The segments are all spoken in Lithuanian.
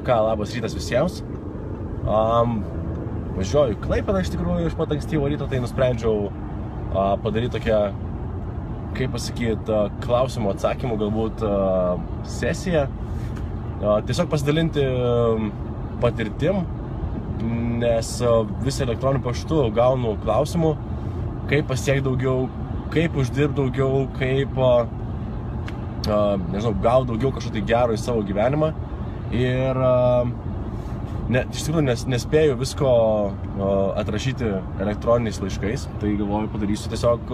Na ką, labas rytas visiems. Važiuoju į Klaipėdą iš tikrųjų iš pat ankstyvo ryto, tai nusprendžiau padaryti tokią, kaip pasakyti, klausimų atsakymų galbūt sesiją. Tiesiog pasidalinti patirtim, nes vis elektroniniu paštu gaunu klausimų, kaip pasiekti daugiau, kaip uždirbti daugiau, kaip nežinau, gauti daugiau kažko tai gero į savo gyvenimą. Ir iš tikrųjų nespėju visko atrašyti elektroniniais laiškais, tai galvoju padarysiu tiesiog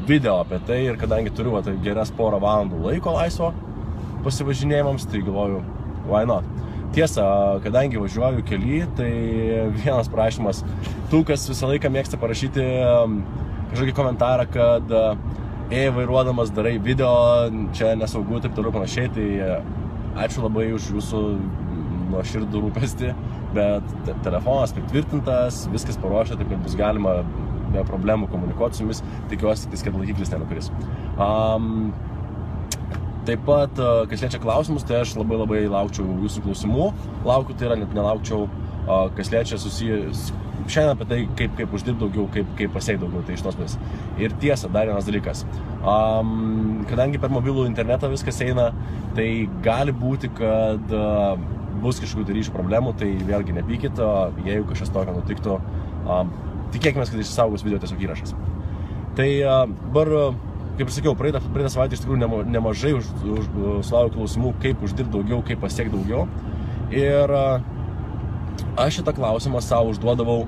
video apie tai. Ir kadangi turiu geras porą valandų laiko laisvo pasivažinėjimams, tai galvoju, why not? Tiesa, kadangi važiuoju kely, tai vienas prašymas, tų, kas visą laiką mėgsta parašyti kažkokį komentarą, kad vairuodamas darai video, čia nesaugu, taip toliau panašiai, tai ačiū labai už jūsų nuoširdų rūpestį, bet telefonas pritvirtintas, viskas paruošta, taip kad bus galima be problemų komunikuoti su jumis, tikiuosi, kad laikiklis nenukris. Taip pat, kas liečia klausimus, tai aš labai laukčiau jūsų klausimų. Laukiu, tai yra net nelaukčiau, kas liečia susijęs šiandien apie tai, kaip uždirbti daugiau, kaip pasiekti daugiau, tai iš tos pusės. Ir tiesa, dar vienas dalykas. Kadangi per mobilų internetą viskas eina, tai gali būti, kad bus kažkokių ryšių problemų, tai vėlgi nepykit, jeigu kažkas tokio nutiktų, tikėkime, kad išsaugos video tiesiog įrašas. Tai dabar, kaip ir sakiau, praeitą savaitę iš tikrųjų nemažai sulaukiau klausimų, kaip uždirbti daugiau, kaip pasiekti daugiau. Ir aš šitą klausimą savo užduodavau,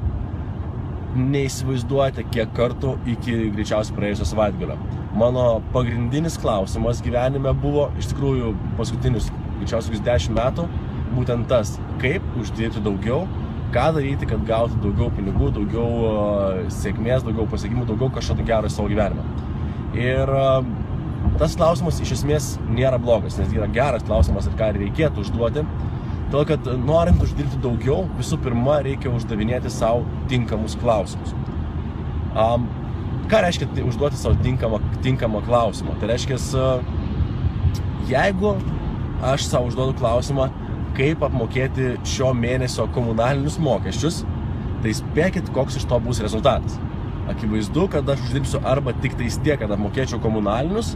neįsivaizduojate, kiek kartų iki greičiausiai praėjusio savaitgalio. Mano pagrindinis klausimas gyvenime buvo, iš tikrųjų, paskutinius greičiausiai 10 metų, būtent tas, kaip uždirbti daugiau, ką daryti, kad gauti daugiau pinigų, daugiau sėkmės, daugiau pasiekimų, daugiau kažko gero į savo gyvenimą. Ir tas klausimas iš esmės nėra blogas, nes yra geras klausimas ir ką reikėtų užduoti. Todėl, kad norint uždirbti daugiau, visų pirma, reikia uždavinėti savo tinkamus klausimus. Ką reiškia užduoti savo tinkamą klausimą? Tai reiškia, jeigu aš savo užduodu klausimą, kaip apmokėti šio mėnesio komunalinius mokesčius, tai spėkit, koks iš to bus rezultatas. Akivaizdu, kad aš uždirbsiu arba tik tais tiek, kad apmokėčiau komunalinius,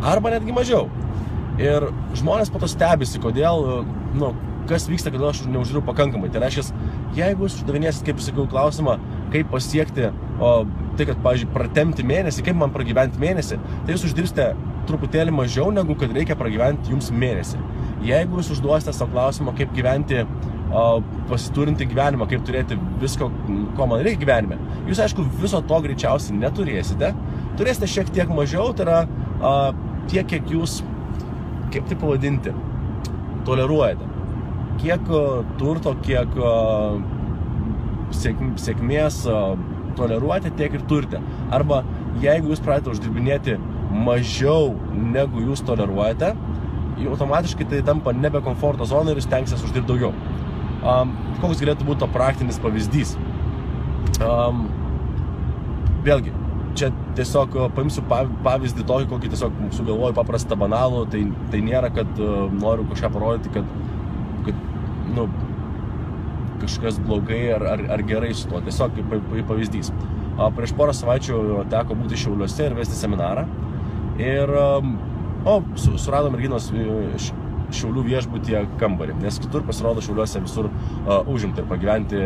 arba netgi mažiau. Ir žmonės po to stebisi, kodėl, kas vyksta, kodėl aš neuždirbu pakankamai. Tai reiškia, jeigu jūs uždavinėsit, kaip sakiau, klausimą, kaip pasiekti, tai kad, pavyzdžiui, pratemti mėnesį, kaip man pragyventi mėnesį, tai jūs uždirbsite truputėlį mažiau, negu kad reikia pragyventi jums mėnesį. Jeigu jūs užduosite savo klausimą, kaip gyventi pasiturinti gyvenimą, kaip turėti visko, ko man reikia gyvenime, jūs, aišku, viso to greičiausiai neturėsite. Turėsite šiek tiek mažiau, tai yra tiek, kiek jūs, kaip tai pavadinti, toleruojate. Kiek turto, kiek sėkmės toleruojate, tiek ir turite. Arba jeigu jūs pradėte uždirbinėti mažiau, negu jūs toleruojate, automatiškai tai tampa nebe komforto zona ir jūs tenksitės uždirbti daugiau. Koks galėtų būti to praktinis pavyzdys? Vėlgi, čia tiesiog paimsiu pavyzdį tokį, kokį tiesiog sugalvoju paprastą banalų, tai nėra, kad noriu kažką parodyti, kad kažkas blogai ar gerai su tuo, tiesiog kaip pavyzdys. Prieš porą savaičių teko būti Šiauliuose ir vesti seminarą ir surado merginos Šiaulių viešbutyje kambarį, nes kitur pasirodo Šiauliuose visur užimti ir pagyventi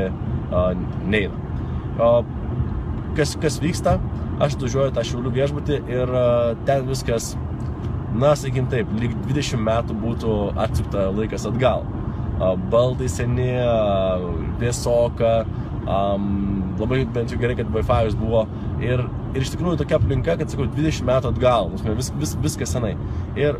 neina. Kas vyksta? Aš atvažiuoju tą Šiaulių viešbutį ir ten viskas, sakykim taip, lyg 20 metų būtų atsukta laikas atgal. Baldai seni, vėsoka, labai bent jau gerai, kad Wi-Fi'us buvo ir iš tikrųjų tokia aplinka, kad sakau, 20 metų atgal, viskas senai. Ir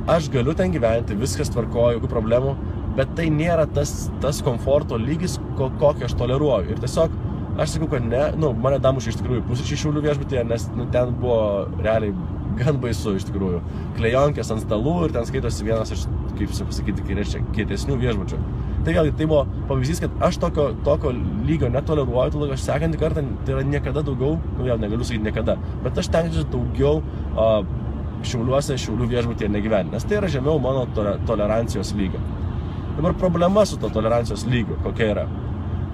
aš galiu ten gyventi, viskas tvarkoju, jokių problemų, bet tai nėra tas komforto lygis, kokį aš toleruoju. Ir tiesiog aš sakau, kad ne, mane damušė iš tikrųjų pusryčiai Šiaulių viešbutyje, nes ten buvo realiai gan baisu iš tikrųjų. Klejonkės ant stalų ir ten skaitosi vienas iš, kaip pasakyti, kietesnių viešbučių. Tai vėlgi, tai buvo pavyzdys, kad aš tokio lygio netoleruoju, todėl aš sekantį kartą, tai yra niekada daugiau, vėl negaliu sakyti niekada, bet aš tenksiu daugiau Šiauliuose, Šiaulių viešbutyje negyventi, nes tai yra žemiau mano tolerancijos lygio. Dabar problema su to tolerancijos lygiu kokia yra,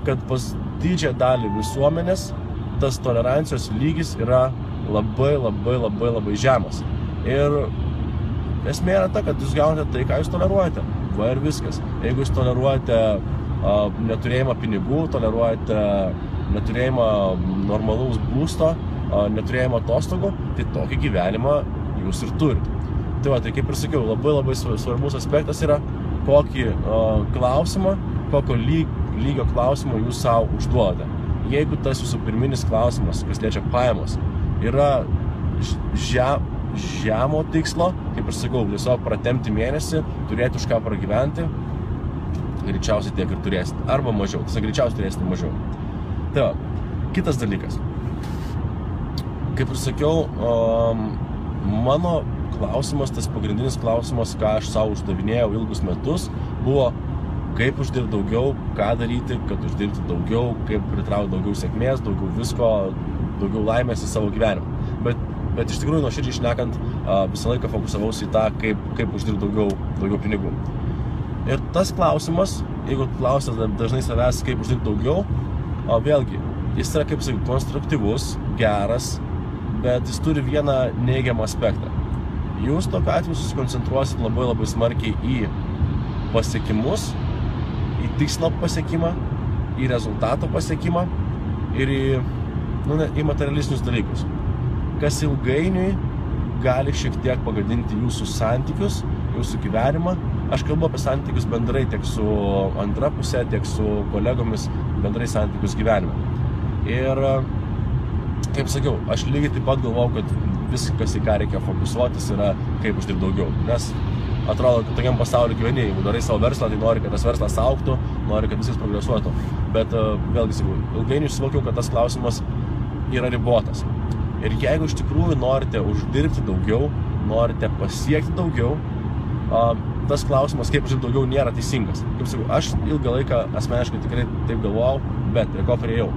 kad pas didžiąją dalį visuomenės tas tolerancijos lygis yra labai žemas. Ir esmė yra ta, kad jūs gaunate tai, ką jūs toleruojate. Va ir viskas. Jeigu jūs toleruojate neturėjimą pinigų, toleruojate neturėjimą normalaus būsto, neturėjimą atostogų, tai tokį gyvenimą jūs ir turite. Tai va, tai kaip ir sakiau, labai svarbus aspektas yra, kokį klausimą, kokio lygio klausimą jūs savo užduodate. Jeigu tas jūsų pirminis klausimas, kas liečia pajamos, yra žemo tikslo, kaip ir sakau, tiesiog pratemti mėnesį, turėti už ką pragyventi, greičiausiai tiek ir turėsite, arba mažiau, tiesiog greičiausiai turėsite mažiau. Tai va, kitas dalykas. Kaip ir sakiau, mano klausimas, tas pagrindinis klausimas, ką aš savo uždavinėjau ilgus metus, buvo kaip uždirbti daugiau, ką daryti, kad uždirbti daugiau, kaip pritraukti daugiau sėkmės, daugiau visko, daugiau laimės į savo gyvenimą. Bet iš tikrųjų, nuoširdžiai šnekant, visą laiką fokusavausi į tą, kaip uždirbti daugiau pinigų. Ir tas klausimas, jeigu klausite dažnai savęs, kaip uždirbti daugiau, vėlgi, jis yra, kaip sakai, konstruktyvus, geras, bet jis turi vieną neigiamą aspektą. Jūs tokiu atveju susikoncentruosit labai smarkiai į pasiekimus, į tikslo pasiekimą, į rezultato pasiekimą ir į materialistinius dalykus, kas ilgainiui gali šiek tiek pagadinti jūsų santykius, jūsų gyvenimą. Aš kalbu apie santykius bendrai tiek su antra pusė, tiek su kolegomis, bendrai santykius gyvenime. Ir, kaip sakiau, aš lygiai taip pat galvojau, kad viskas, į ką reikia fokusuotis, yra kaip uždirbti daugiau. Nes atrodo, kad tokiam pasauliu gyveni, jeigu darai savo verslą, tai nori, kad tas verslas augtų, nori, kad viskas progresuotų. Bet vėlgi, sakau, ilgainiui suvokiau, kad tas klausimas yra ribotas. Ir jeigu iš tikrųjų norite uždirbti daugiau, norite pasiekti daugiau, tas klausimas, kaip uždirbti daugiau, nėra teisingas. Kaip sakau, aš ilgą laiką asmeniškai tikrai taip galvojau, bet prie ko priėjau,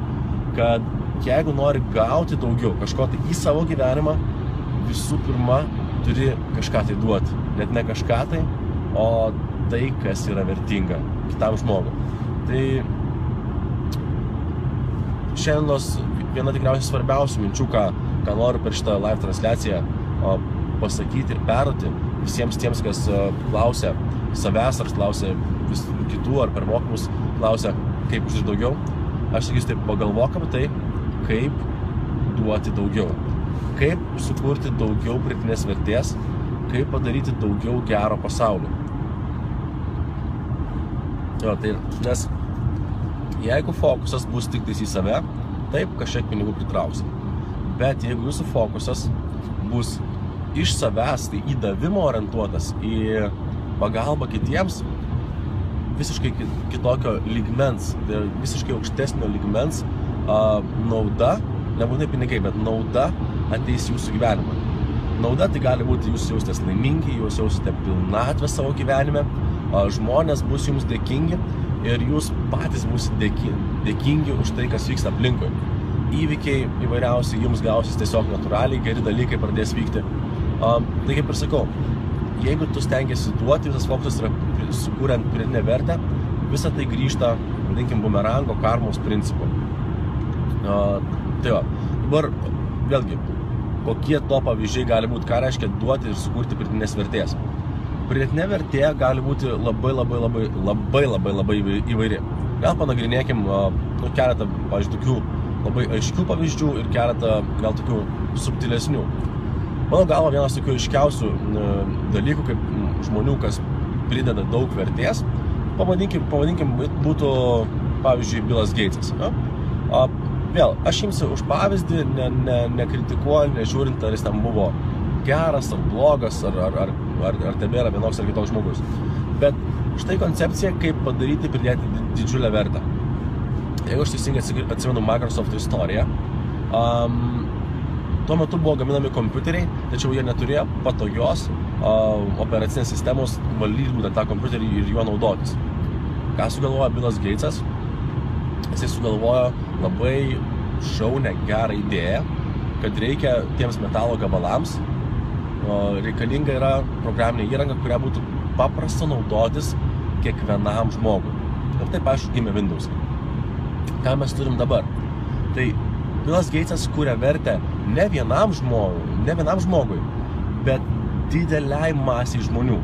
kad jeigu nori gauti daugiau kažko tai į savo gyvenimą, visų pirma, turi kažką tai duoti. Net ne kažką tai, o tai, kas yra vertinga kitam žmogui. Tai šiandienos viena tikriausiai svarbiausių minčių, ką noriu per šitą live transliaciją pasakyti ir perduoti visiems tiems, kas klausia savęs ar klausia kitų ar per mokymus klausia, kaip uždirbti daugiau. Aš sakysiu taip, pagalvok apie tai, kaip duoti daugiau. Kaip sukurti daugiau pridėtinės vertės, kaip padaryti daugiau gero pasauliu. Nes jeigu fokusas bus tik tais į save, taip kažkiek pinigų pritrauksi. Bet jeigu jūsų fokusas bus iš savęs, tai į davimo orientuotas, į pagalbą kitiems, visiškai kitokio lygmens, visiškai aukštesnio lygmens nauda, nebūtinai pinigai, bet nauda ateis jūsų gyvenimą. Nauda tai gali būti jūs jaustės laimingi, jūs jausite pilnatvę savo gyvenime, žmonės bus jums dėkingi ir jūs patys būsite dėkingi už tai, kas vyksta aplinkui. Įvykiai įvairiausiai jums gausis tiesiog natūraliai, geri dalykai pradės vykti. Tai kaip ir sakau, jeigu tu stengiasi duoti, visas fokusas yra sukuriant pridėtinę vertę, visą tai grįžta, vadinkim, bumerango karmos principu. Tai va, dabar vėlgi, kokie to pavyzdžiai gali būti, ką reiškia duoti ir sukurti pridėtinės vertės. Pridėtinė vertė gali būti labai įvairi. Gal panagrinėkim keletą, pavyzdžiui, tokių labai aiškių pavyzdžių ir keletą gal tokių subtilesnių. Mano galva, vienas tokių aiškiausių dalykų, kaip žmonių, kas prideda daug vertės, pavadinkim būtų, pavyzdžiui, Billas Gatesas. Vėl, aš imsiu už pavyzdį, nekritikuoju, nežiūrint, ar jis ten buvo geras ar blogas, ar tebėra vienoks ar kitoks žmogus. Bet štai koncepcija, kaip padaryti pridėti didžiulę vertę. Jeigu aš teisingai atsimenu Microsoft istoriją, tuo metu buvo gaminami kompiuteriai, tačiau jie neturėjo patogios operacinės sistemos valdyti būtent tą kompiuterį ir juo naudotis. Ką sugalvojo Billas Gatesas? Jisai sugalvojo labai šaunią, gerą idėją, kad reikia tiems metalo gabalams, reikalinga yra programinė įranga, kurią būtų paprasta naudotis kiekvienam žmogui. Ir taip, aišku, gimė Windows. Ką mes turim dabar? Tai Billas Gatesas kūrė vertę ne vienam žmogui, bet dideliai masiai žmonių.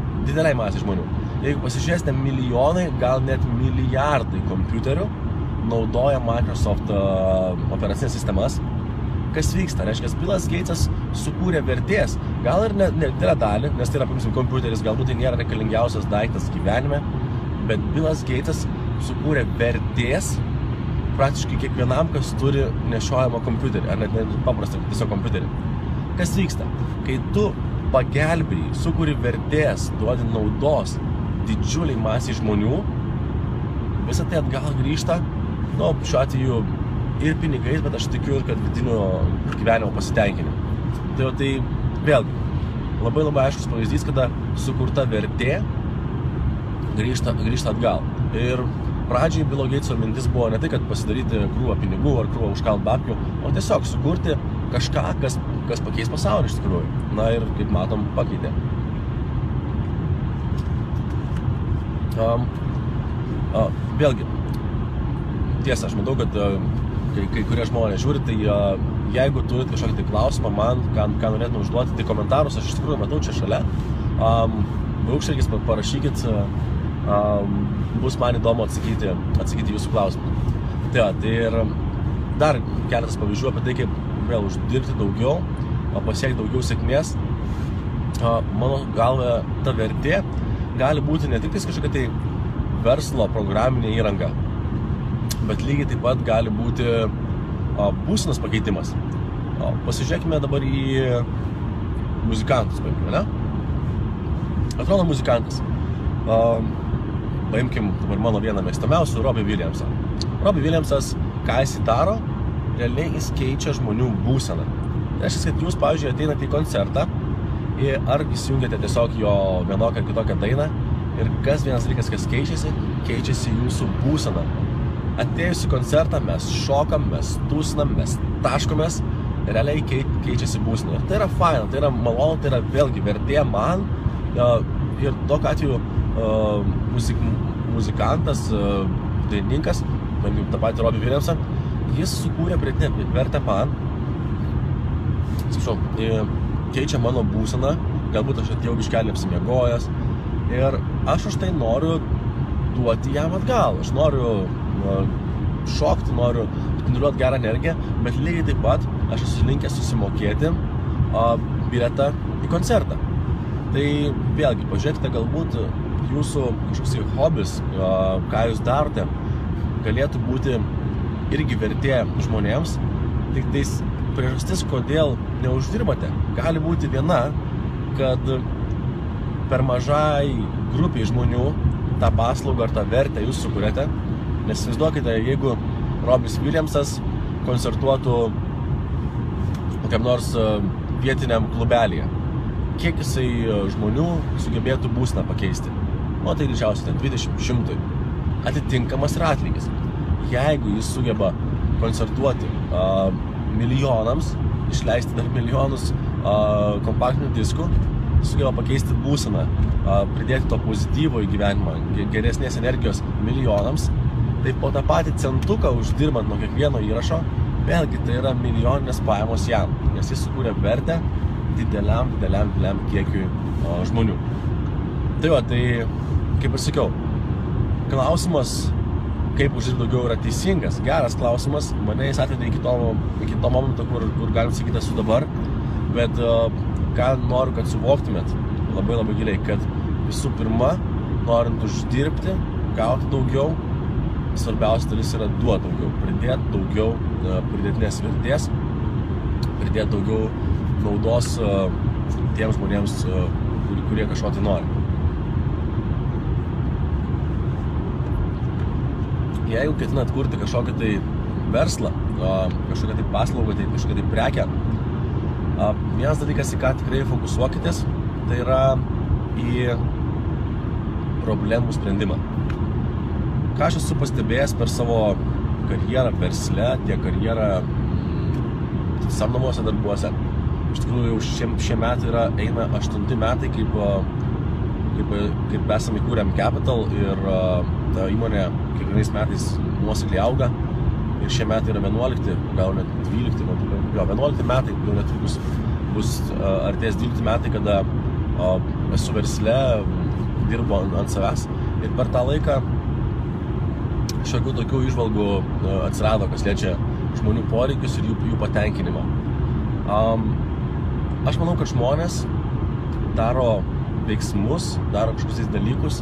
Jeigu pasižiūrėsite, milijonai, gal net milijardai kompiuterių naudoja Microsoft operacinės sistemas. Kas vyksta? Reiškia, Billas Gatesas sukūrė vertės, gal ir nedidelę dalį, nes tai yra, pavyzdžiui, kompiuteris, galbūt tai nėra reikalingiausias daiktas gyvenime, bet Billas Gatesas sukūrė vertės praktiškai kiekvienam, kas turi nešiojamą kompiuterį, ar net paprastą tiesiog kompiuterį. Kas vyksta? Kai tu pagelbėjai, sukūri vertės, duodi naudos didžiuliai masiai žmonių, visą tai atgal grįžta, šiuo atveju ir pinigais, bet aš tikiu ir kad vidinio gyvenimo pasitenkinimu. Tai vėlgi, labai aiškus pavyzdys, kada sukurta vertė grįžta atgal. Ir pradžiai Billo Gateso mintis buvo ne tai, kad pasidaryti krūvą pinigų ar krūvą užkalt babkių, o tiesiog sukurti kažką, kas pakeis pasaulį iš tikrųjų. Na ir, kaip matom, pakeitė. Vėlgi, tiesa, aš matau, kad kai kurie žmonės žiūri, tai jeigu turit kažkokį tai klausimą man, ką norėtume užduoti, tai komentarus aš iš tikrųjų matau čia šalia. Braukštelkis, parašykit, bus man įdomu atsakyti jūsų klausimą. Tai ir dar keletas pavyzdžių apie tai, kaip vėl uždirbti daugiau, pasiekti daugiau sėkmės. Mano galva, ta vertė gali būti ne tik kažkokia tai verslo programinė įranga, bet lygiai taip pat gali būti būsenos pakeitimas. Pasižiūrėkime dabar į muzikantus, paimkime, ne? Atrodo muzikantas. Paimkim dabar mano vieną mėgstamiausių, Robbie Williamsą. Robbie Williamsas, ką jis daro, realiai jis keičia žmonių būseną. Tai reiškia, kad jūs, pavyzdžiui, ateinate į koncertą ar įsijungiate tiesiog jo vienokią ar kitokią dainą ir kas vienas dalykas, kas keičiasi jūsų būsena. Atėjus į koncertą mes šokam, mes tūsinam, mes taškomės, realiai keičiasi būsena. Ir tai yra faina, tai yra malonu, tai yra vėlgi vertė man ir tokiu atveju muzikantas, dainininkas, tą patį Robbie Williamsą, jis sukūrė pridėtinę vertę man, keičia mano būseną, galbūt aš atėjau biškelį apsimiegojęs ir aš už tai noriu duoti jam atgal. Aš noriu šokti, noriu spinduliuoti gerą energiją, bet lygiai taip pat aš esu linkęs susimokėti bilietą į koncertą. Tai vėlgi, pažiūrėkite, galbūt jūsų kažkoks hobis, ką jūs darote, galėtų būti irgi vertė žmonėms, tik tais priežastis, kodėl neuždirbate, gali būti viena, kad per mažai grupiai žmonių tą paslaugą ar tą vertę jūs sukūrėte, nes įsivaizduokite, jeigu Robbie Williamsas koncertuotų kokiam nors vietiniam klubelyje, kiek jisai žmonių sugebėtų būseną pakeisti? Tai greičiausiai 20-100. Atitinkamas yra atlygis. Jeigu jis sugeba koncertuoti milijonams, išleisti dar milijonus kompaktinių diskų, sugeba pakeisti būseną, pridėti to pozityvo į gyvenimą, geresnės energijos milijonams, tai po tą patį centuką uždirbant nuo kiekvieno įrašo, vėlgi tai yra milijoninės pajamos jam, nes jis sukūrė vertę dideliam kiekiui žmonių. Tai kaip ir sakiau, klausimas, kaip uždirbti daugiau, yra teisingas, geras klausimas, mane jis atvedė iki to momento, kur galim sakyti esu dabar, bet ką noriu, kad suvoktumėt labai giliai, kad visų pirma, norint uždirbti, gauti daugiau, svarbiausia dalis yra duoti daugiau, pridėti daugiau pridėtinės vertės, pridėti daugiau naudos tiems žmonėms, kurie kažko tai nori. Jeigu ketinat kurti kažkokį tai verslą, kažkokią tai paslaugą, tai kažkokią tai prekę, vienas dalykas, į ką tikrai fokusuokitės, tai yra į problemų sprendimą. Ką aš esu pastebėjęs per savo karjerą versle, tiek karjerą samdomuose darbuose. Iš tikrųjų, jau šie metai eina 8 metai, kaip kaip esame įkūrėm Capital ir ta įmonė kiekvienais metais nuosekliai auga. Ir šie metai yra 11, gal net 12, 11 metai, jau netrukus bus artės 12 metai, kada esu versle, dirbu ant savęs. Ir per tą laiką šiokių tokių įžvalgų atsirado, kas liečia žmonių poreikius ir jų patenkinimą. Aš manau, kad žmonės daro veiksmus, daro kažkokius dalykus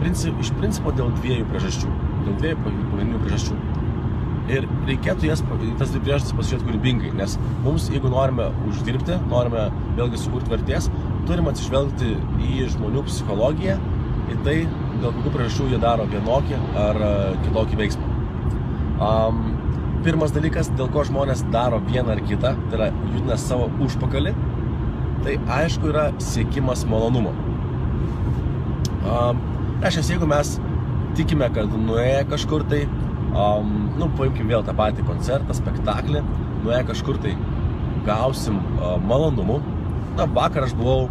iš principo dėl dviejų priežasčių. Dėl dviejų pagrindinių priežasčių. Ir reikėtų tas dvi priežastis pasižiūrėti kūrybingai, nes mums, jeigu norime uždirbti, norime vėlgi sukurti vertės, turim atsižvelgti į žmonių psichologiją, į tai, dėl kokių priežasčių jie daro vienokį ar kitokį veiksmą. Pirmas dalykas, dėl ko žmonės daro vieną ar kitą, tai yra judina savo užpakalį, tai aišku yra siekimas malonumo. Reiškia, jeigu mes tikime, kad nuėję kažkur tai, paimkim vėl tą patį koncertą, spektaklį, nuėję kažkur tai gausim malonumų. Vakar aš buvau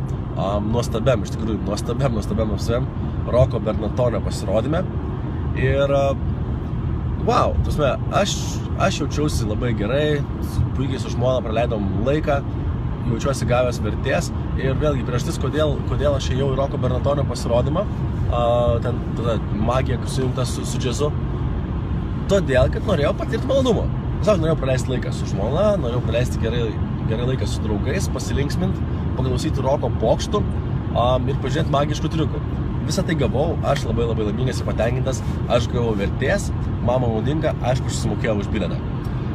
nuostabiam, iš tikrųjų nuostabiam Roko Bernatonio pasirodyme. Ir wow, aš jaučiausi labai gerai, puikiai su žmona praleidom laiką, jaučiuosi gavęs vertės. Ir vėlgi priežastis, kodėl aš ėjau į Roko Bernatonio pasirodymą, ten tada magija sujungta su džiazu. Todėl, kad norėjau patirti malonumą. Tiesiog norėjau praleisti laiką su žmona, norėjau praleisti gerai laiką su draugais, pasilinksminti, paklausyti roko pokštų ir pažiūrėti magiškų triukų. Visą tai gavau, aš labai laimingas ir patenkintas, aš gavau vertės, mama naudinga, aišku, aš susimokėjau už bilietą.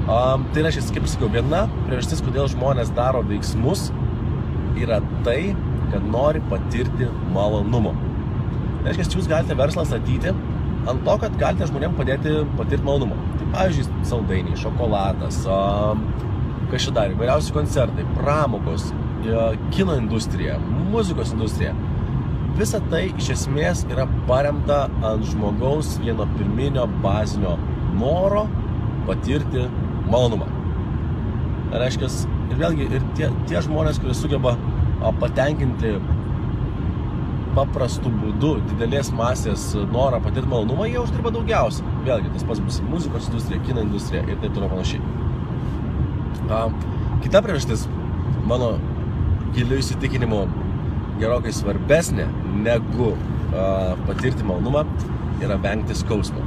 Tai reiškia, kaip sakiau, viena priežastis, kodėl žmonės daro veiksmus, yra tai, kad nori patirti malonumą. Tai reiškia, jūs galite verslą statyti ant to, kad galite žmonėms padėti patirti malonumą. Tai pavyzdžiui, saldainiai, šokoladas, kas čia dar, įvairiausi koncertai, pramogos, kino industrija, muzikos industrija. Visa tai iš esmės yra paremta ant žmogaus vieno pirminio bazinio noro patirti malonumą. Tai reiškia, ir vėlgi, ir tie žmonės, kurie sugeba patenkinti paprastų būdų, didelės masės norą patirti malonumą, jie uždirba daugiausiai. Vėlgi, tas pats bus muzikos industrija, kino industrija ir taip toliau panašiai. Kita priežastis, mano giliu įsitikinimu, gerokai svarbesnė negu patirti malonumą, yra vengti skausmo.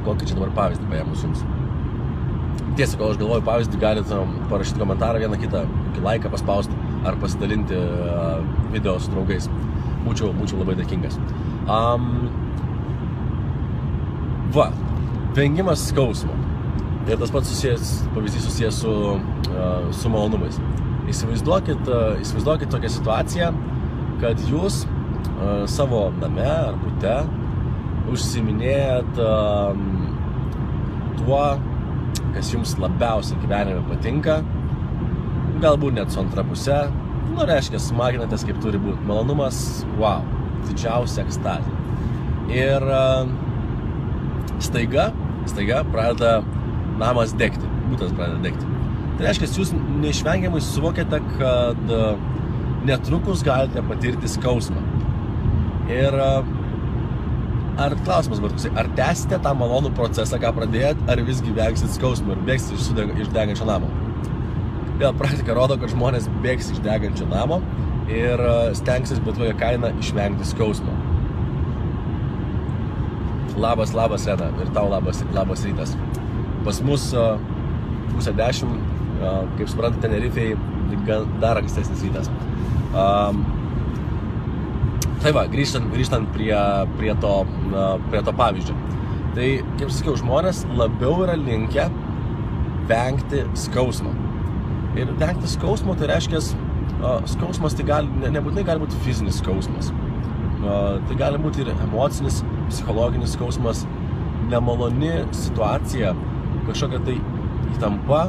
Kokį čia dabar pavyzdį paėmus jums? Tiesa, kol aš galvoju pavyzdį, galite parašyti komentarą, vieną kitą, kokį laiką paspausti ar pasidalinti video su draugais. Būčiau labai dėkingas. Vengimas skausmo. Ir tas pats pavyzdys susijęs su malonumais. Įsivaizduokit tokią situaciją, kad jūs savo name ar bute užsiiminėjat tuo, kas jums labiausiai gyvenime patinka, galbūt net su antra puse, reiškia, smaginatės kaip turi būti. Malonumas, wow, didžiausia ekstazė. Ir staiga pradeda namas degti, butas pradeda degti. Tai reiškia, jūs neišvengiamai suvokiate, kad netrukus galite patirti skausmą. Ir klausimas buvo toksai, ar tęsite tą malonų procesą, ką pradėjot, ar visgi vengsit skausmą ir bėgsite iš degančio namo? Vėl praktika rodo, kad žmonės bėgs iš degančio namo ir stengsis bet kokią kainą išvengti skausmo. Labas, Reda, ir tau labas rytas. Pas mus 9:30, kaip suprantate, Tenerifei dar ankstesnis rytas. Tai va, grįžtant prie to pavyzdžio. Tai, kaip sakiau, žmonės labiau yra linkę vengti skausmo. Ir vengti skausmo, tai reiškia, skausmas tai nebūtinai gali būti fizinis skausmas. Tai gali būti ir emocinis, psichologinis skausmas, nemaloni situacija, kažkokia tai įtampa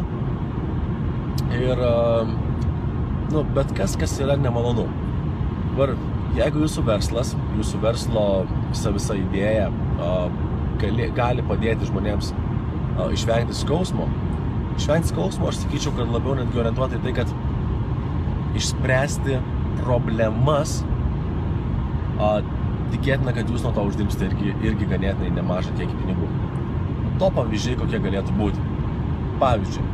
ir bet kas yra nemalonu. Dabar, jeigu jūsų verslo visa idėja gali padėti žmonėms išvengti skausmo, aš sakyčiau, kad labiau netgi orientuoti į tai, kad išspręsti problemas, tikėtina, kad jūs nuo to uždirbsite irgi ganėtinai nemažą kiekį pinigų. To pavyzdžiai kokie galėtų būti. Pavyzdžiui,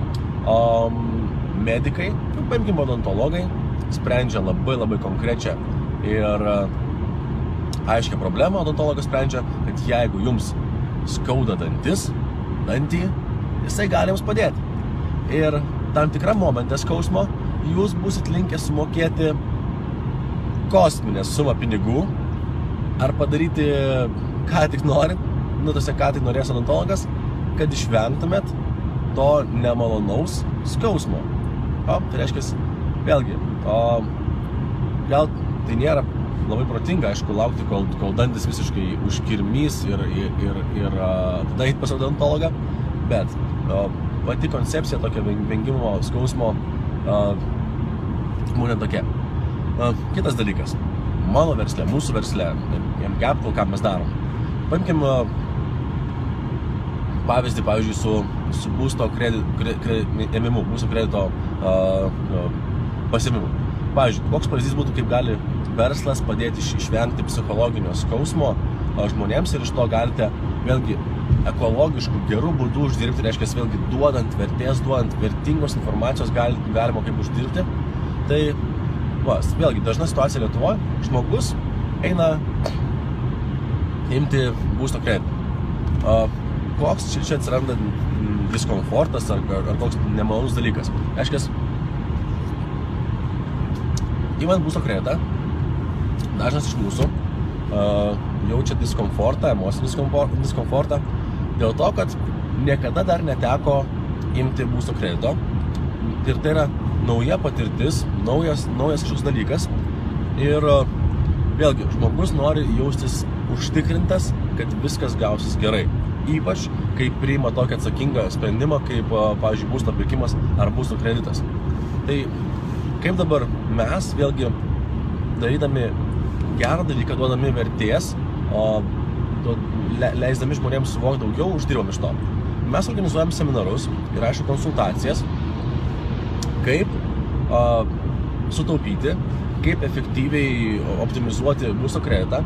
medikai, paimkime odontologai, sprendžia labai konkrečią ir aiškią problemą. Odontologas sprendžia, kad jeigu jums skauda dantį, jisai gali jums padėti. Ir tam tikrą momentą skausmo jūs būsit linkę sumokėti kosminę sumą pinigų ar padaryti ką tik norit, ką tik norės odontologas, kad išvengtumėt to nemalonaus skausmo. Tai reiškia, vėlgi, gal tai nėra labai protinga, aišku, laukti, kol dantis visiškai užkirmys ir tada eit pas odontologą, bet pati koncepcija tokio vengimo skausmo būna tokia. Kitas dalykas, mano versle, mūsų versle, MCapital, ką mes darom. Paimkim pavyzdį, pavyzdžiui, su būsto ėmimu, būsto kredito pasiėmimu. Pavyzdžiui, koks pavyzdys būtų, kaip gali verslas padėti išvengti psichologinio skausmo žmonėms ir iš to galite vėlgi ekologiškų gerų būdų uždirbti, reiškia, vėlgi duodant vertės, duodant vertingos informacijos galima kaip uždirbti. Tai, vėlgi, dažna situacija Lietuvoje, žmogus eina imti būsto kreditą. Koks čia atsiranda diskomfortas ar koks nemalonus dalykas. Reiškia, įmant būsto kreditą, dažnas iš mūsų jaučia diskomfortą, emocinį diskomfortą dėl to, kad niekada dar neteko imti būsto kredito. Ir tai yra nauja patirtis, naujas kažkoks dalykas. Ir vėlgi, žmogus nori jaustis užtikrintas, kad viskas gausis gerai. Ypač, kai priima tokį atsakingą sprendimą, kaip, pavyzdžiui, būsto pirkimas ar būsto kreditas. Tai kaip dabar mes, vėlgi, darydami gerą dalyką, duodami vertės, leisdami žmonėms suvokti daugiau, uždirbam iš to. Mes organizuojam seminarus ir, aišku, konsultacijas, kaip sutaupyti, kaip efektyviai optimizuoti būsto kreditą.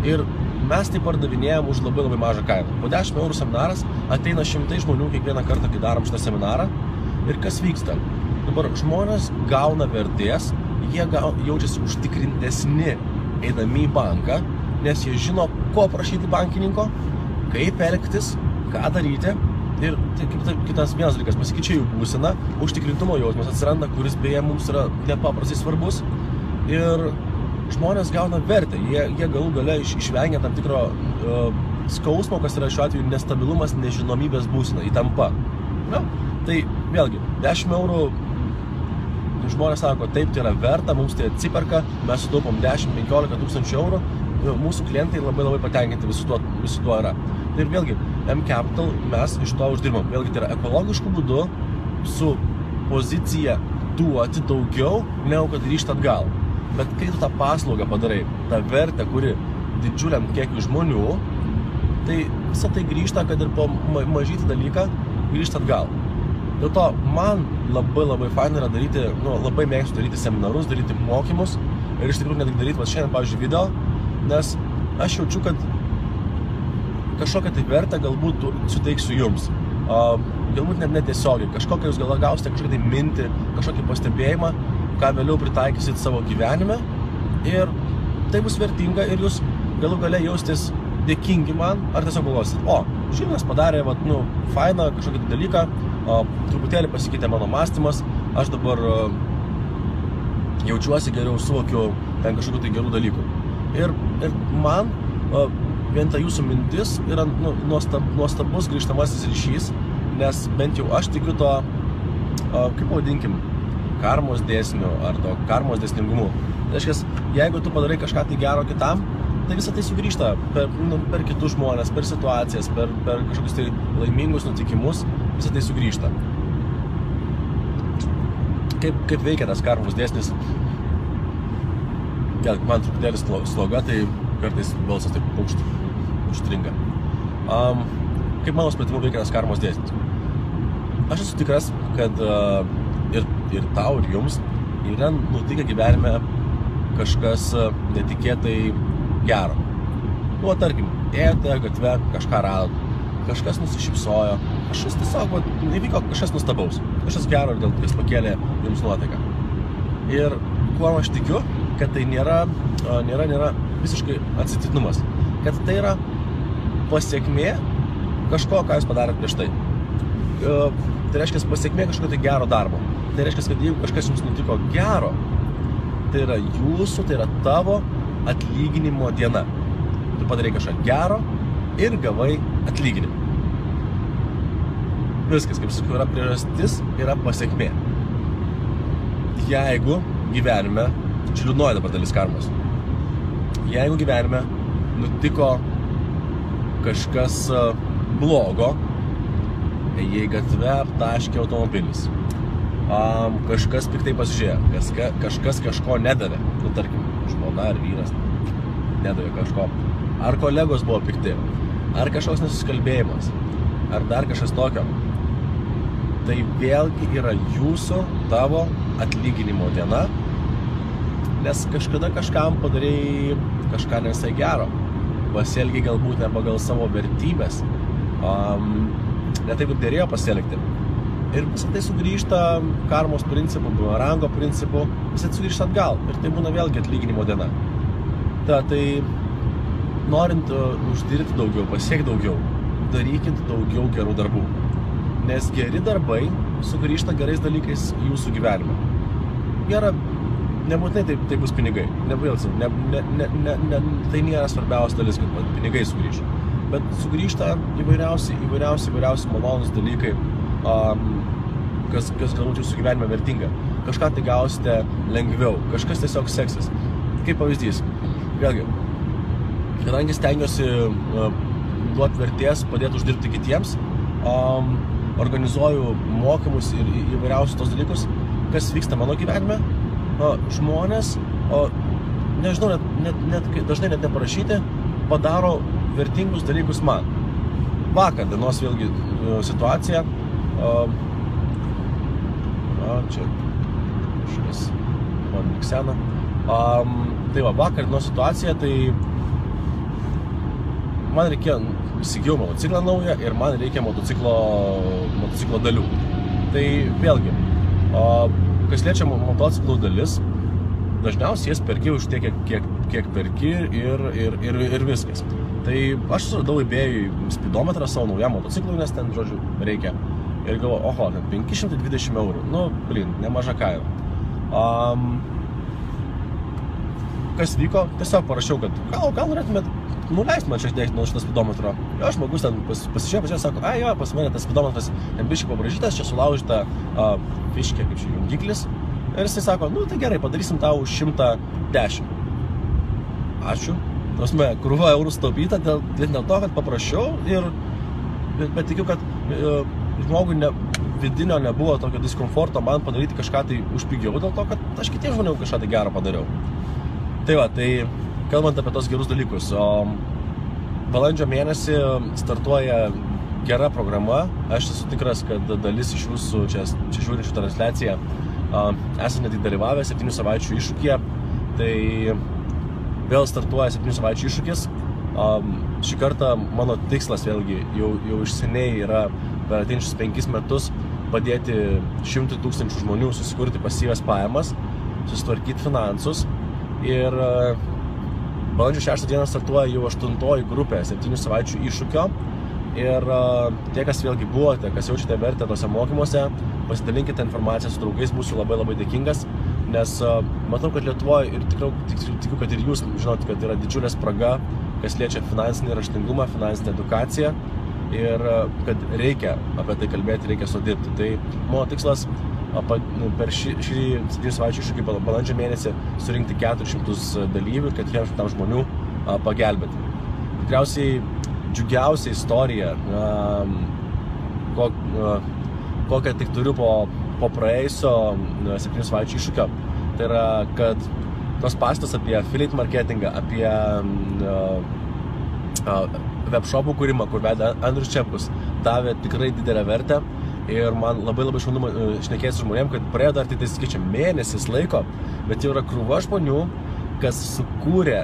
Ir mes tai pardavinėjam už labai mažą kainą. Po 10 eurų seminaras ateina šimtai žmonių kiekvieną kartą, kai darom šitą seminarą. Ir kas vyksta? Dabar žmonės gauna vertės, jie jaučiasi užtikrintesni eidami į banką, nes jie žino, ko prašyti bankininko, kaip elgtis, ką daryti. Ir kitas vienas dalykas, pasikeičia jų būsena, užtikrintumo jausmas atsiranda, kuris beje mums yra nepaprastai svarbus. Ir žmonės gauna vertę, jie galų gale išvengia tam tikro skausmo, kas yra šiuo atveju nestabilumas, nežinomybės būsena, įtampa. Tai vėlgi, 10 eurų žmonės sako, taip, tai yra verta, mums tai atsiperka, mes sutaupom 10-15 tūkstančių eurų, mūsų klientai labai patenkinti visu tuo yra. Ir vėlgi, MCapital mes iš to uždirbam. Vėlgi, tai yra ekologiškų būdų su pozicija duoti daugiau, negu kad grįžti atgal. Bet kai tu tą paslaugą padarai, tą vertę, kuri didžiuliam kiekiu žmonių, tai visą tai grįžta, kad ir po mažytį dalyką grįžti atgal. Dėl to man labai faina yra daryti, labai mėgstu daryti seminarus, daryti mokymus ir iš tikrųjų ne tik daryti šiandien, pavyzdžiui, video, nes aš jaučiu, kad kažkokią tai vertę galbūt suteiksiu jums. Galbūt net netiesiogiai, kažkokią jūs gausite kažkokią tai mintį, kažkokį pastebėjimą, ką vėliau pritaikysit savo gyvenime ir tai bus vertinga ir jūs galų gale jaustis dėkingi man ar tiesiog galvosit, Žilvinas padarė, fainą kažkokį dalyką, truputėlį pasikeitė mano mąstymas, aš dabar jaučiuosi geriau, suvokiu ten kažkokių tai gerų dalykų. Ir man vien ta jūsų mintis yra nuostabus grįžtamasis ryšys, nes bent jau aš tikiu to, kaip pavadinkim, karmos dėsniu ar to karmos dėsningumu. Tai reiškia, jeigu tu padarai kažką tai gero kitam, tai visą tai sugrįžta per kitus žmonės, per situacijas, per kažkokius tai laimingus nutikimus, visą tai sugrįžta. Kaip veikia tas karmos dėsnis? Man truputėlis sloga, tai kartais balsas taip užstringa. Kaip mano supratimu veikia tas karmos dėsnis? Aš esu tikras, kad ir tau, ir jums yra nutikę gyvenime kažkas netikėtai gero. Nu, tarkim, ėjote gatve, kažką radot, kažkas nusišypsojo, kažkas tiesiog įvyko kažkas nustabaus, kažkas gero ir dėl kas pakėlė jums nuotaiką. Ir kuo aš tikiu, kad tai nėra visiškai atsitiktinumas, kad tai yra pasiekmė kažko, ką jūs padarėt prieš tai. Tai reiškia pasiekmė kažko tai gero darbo. Tai reiškia, kad jeigu kažkas jums nutiko gero, tai yra jūsų, tai yra tavo atlyginimo diena. Tu padarai kažką gero ir gavai atlyginimą. Viskas, kaip sakau, yra priežastis, yra pasiekmė. Jeigu gyvenime, čia liūdnoji dabar dalis karmos, jeigu gyvenime nutiko kažkas blogo, ėjai gatve, aptaškė automobilis, kažkas piktai pasižiūrėjo, kažkas kažko nedavė, nu tarkim, žmona ar vyras nedavė kažko, ar kolegos buvo pikti, ar kažkoks nesusikalbėjimas, ar dar kažkas tokio, tai vėlgi yra jūsų, tavo atlyginimo diena, nes kažkada kažkam padarei kažką nesai gero, pasielgiai galbūt ne pagal savo vertybės, ne taip, kaip dėrėjo pasielgti. Ir visą tai sugrįžta karmos principu, bumerango principu, visą tai sugrįžta atgal. Ir tai būna vėlgi atlyginimo diena. Tai norint uždirbti daugiau, pasiekti daugiau, darykit daugiau gerų darbų. Nes geri darbai sugrįžta gerais dalykais į jūsų gyvenimą. Gera, nebūtinai tai bus pinigai. Tai nėra svarbiausia dalis, kad pinigai sugrįžta. Bet sugrįžta įvairiausi malonus dalykai, kas galbūt jūsų gyvenime vertinga. Kažką tai gausite lengviau, kažkas tiesiog seksis. Kaip pavyzdys, vėlgi, kadangi stengiuosi duoti vertės, padėti uždirbti kitiems, organizuoju mokymus ir įvairiausius tos dalykus, kas vyksta mano gyvenime, žmonės, nežinau, dažnai net neparašyti, padaro vertingus dalykus man. Vakar dienos vėlgi situacija, čia kažkas man liksena. Tai va, vakar dienos situacija, tai man reikėjo, įsigijau motociklą naują ir man reikia motociklo dalių. Tai vėlgi, kas liečia motociklų dalis, dažniausiai jas perki už tiek, kiek perki ir viskas. Tai aš suradau eBay'ui spidometrą savo naujam motociklui, nes ten, žodžiu, reikia. Ir galvoju, oho, ten 520 eurų. Nu, nemaža kaina. Kas vyko? Tiesiog parašiau, kad gal norėtumėt nuleisti man šiek tiek nuo šitą spidometro. Jo, žmogus ten pasižiūrėjo, sako, jo, pas mane tas spidometras biškai pabražytas, čia sulaužyta fiškė, kaip čia jungiklis. Ir jisai sako, nu tai gerai, padarysim tau 110. Ačiū. Krūva eurų sutaupyta dėl to, kad paprašiau bet tikiu, kad žmogui vidinio nebuvo tokio diskomforto man padaryti kažką tai už pigiau, dėl to, kad aš kitiems žmonėm kažką tai gero padariau. Tai va, tai kalbant apie tos gerus dalykus, balandžio mėnesį startuoja gera programa, aš esu tikras, kad dalis iš jūsų čia žiūrinčių transliaciją esate netgi dalyvavę 7 savaičių iššūkyje, tai vėl startuoja 7 savaičių iššūkis. Šį kartą mano tikslas vėlgi jau iš seniai yra per ateinančius 5 metus padėti 100 000 žmonių susikurti pasyvias pajamas, susitvarkyti finansus. Ir balandžio 6 dieną startuoja jau 8 grupė 7 savaičių iššūkio. Ir tie, kas vėlgi buvote, kas jaučiate vertę tose mokymuose, pasidalinkite informaciją su draugais, būsiu labai žinot, nes matau, kad Lietuvoje ir tikiu, kad ir jūs žinot, kad yra didžiulė spraga, kas liečia finansinį raštingumą, finansinę edukaciją ir kad reikia apie tai kalbėti, reikia sudirbti. Tai mano tikslas per šį 7 savaičių iššūkį balandžio mėnesį surinkti 400 dalyvių, kad 400 žmonių pagelbėti. Tikriausiai džiugiausia istorija, kokią tik turiu po praėjusio 7 savaičių iššūkio, tai yra, kad tos pastos apie affiliate marketingą, apie webshopų kūrimą, kur vedė Andrius Čepkus, davė tikrai didelę vertę ir man labai šaunu šnekėti su žmonėm, kad praėjo dar tik skaičiam mėnesis laiko, bet jau yra krūva žmonių, kas sukūrė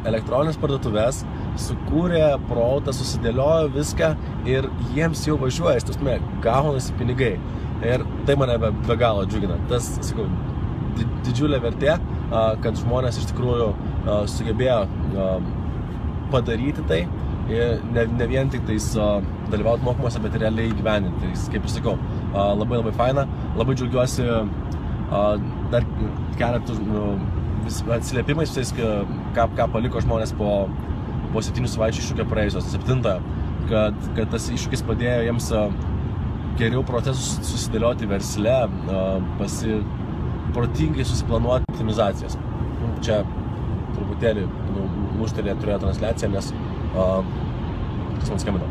elektroninės parduotuvės, sukūrė produktą, susidėliojo viską ir jiems jau važiuoja, iš tiesmė, gaunasi pinigai. Ir tai mane be galo džiugina. Tas, sakau, didžiulė vertė, kad žmonės iš tikrųjų sugebėjo padaryti tai, ne vien tik tais dalyvauti mokymuose, bet ir realiai įgyvendinti. Tai, kaip ir sakau, labai faina, labai džiaugiuosi dar keletų atsiliepimais visais, ką paliko žmonės po 7 savaičių iššūkio praėjusios, 7, kad tas iššūkis padėjo jiems geriau procesus susidėlioti versle, protingai susiplanuoti optimizacijas. Čia truputėlį lūžtelė turėjo transliaciją, nes kas man skambino.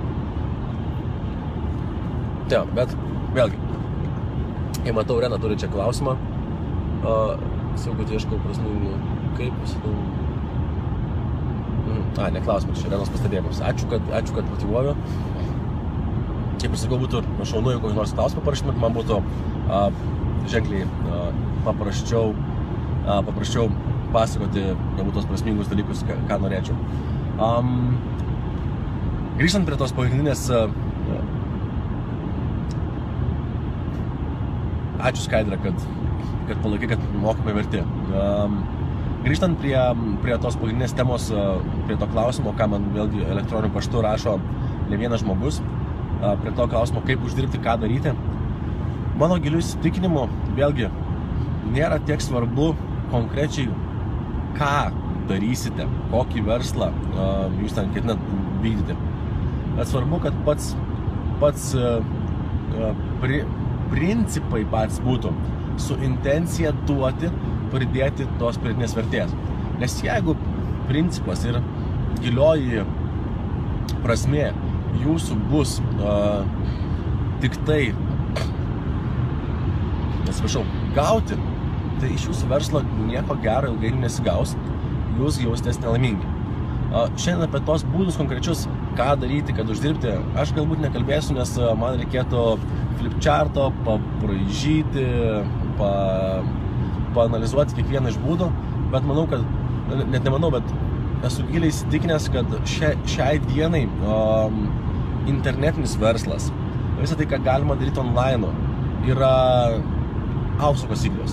Tai, bet vėlgi, kai matau, Rena turi čia klausimą, sakau, kad ieškau prasmingų, kaip sakau. Ne klausimas, čia Renos pastebėjimas. Ačiū, kad motyvuoju. Kaip ir sakau, būtų šaunu, jeigu kokį nors klausimą parašymėt, man būtų ženkliai paprasčiau pasakoti galbūt tos prasmingus dalykus, ką norėčiau. Grįžtant prie tos pagrindinės... Ačiū Skaidra, kad palaikai, kad mokymai verti. Grįžtant prie tos pagrindinės temos, prie to klausimo, ką man vėlgi elektroniniu paštu rašo ne vienas žmogus, prie to klausimo, kaip uždirbti, ką daryti, mano giliu įsitikinimu, vėlgi, nėra tiek svarbu konkrečiai, ką darysite, kokį verslą jūs ten ketinat vykdyti. Bet svarbu, kad pats principai pats būtų su intencija duoti, pridėti tos pridėtinės vertės. Nes jeigu principas ir gilioji prasmė jūsų bus tik tai, gauti, tai iš jūsų verslo nieko gero ilgai nesigaus, jūs jausitės nelaimingi. Šiandien apie tos būdus konkrečius, ką daryti, kad uždirbti, aš galbūt nekalbėsiu, nes man reikėtų flipcharto, pabraižyti, paanalizuoti kiekvieną iš būdų, bet manau, kad, net nemanau, bet esu giliai įsitikinęs, kad šiai dienai internetinis verslas, visą tai, ką galima daryti online, yra aukso kasyklos.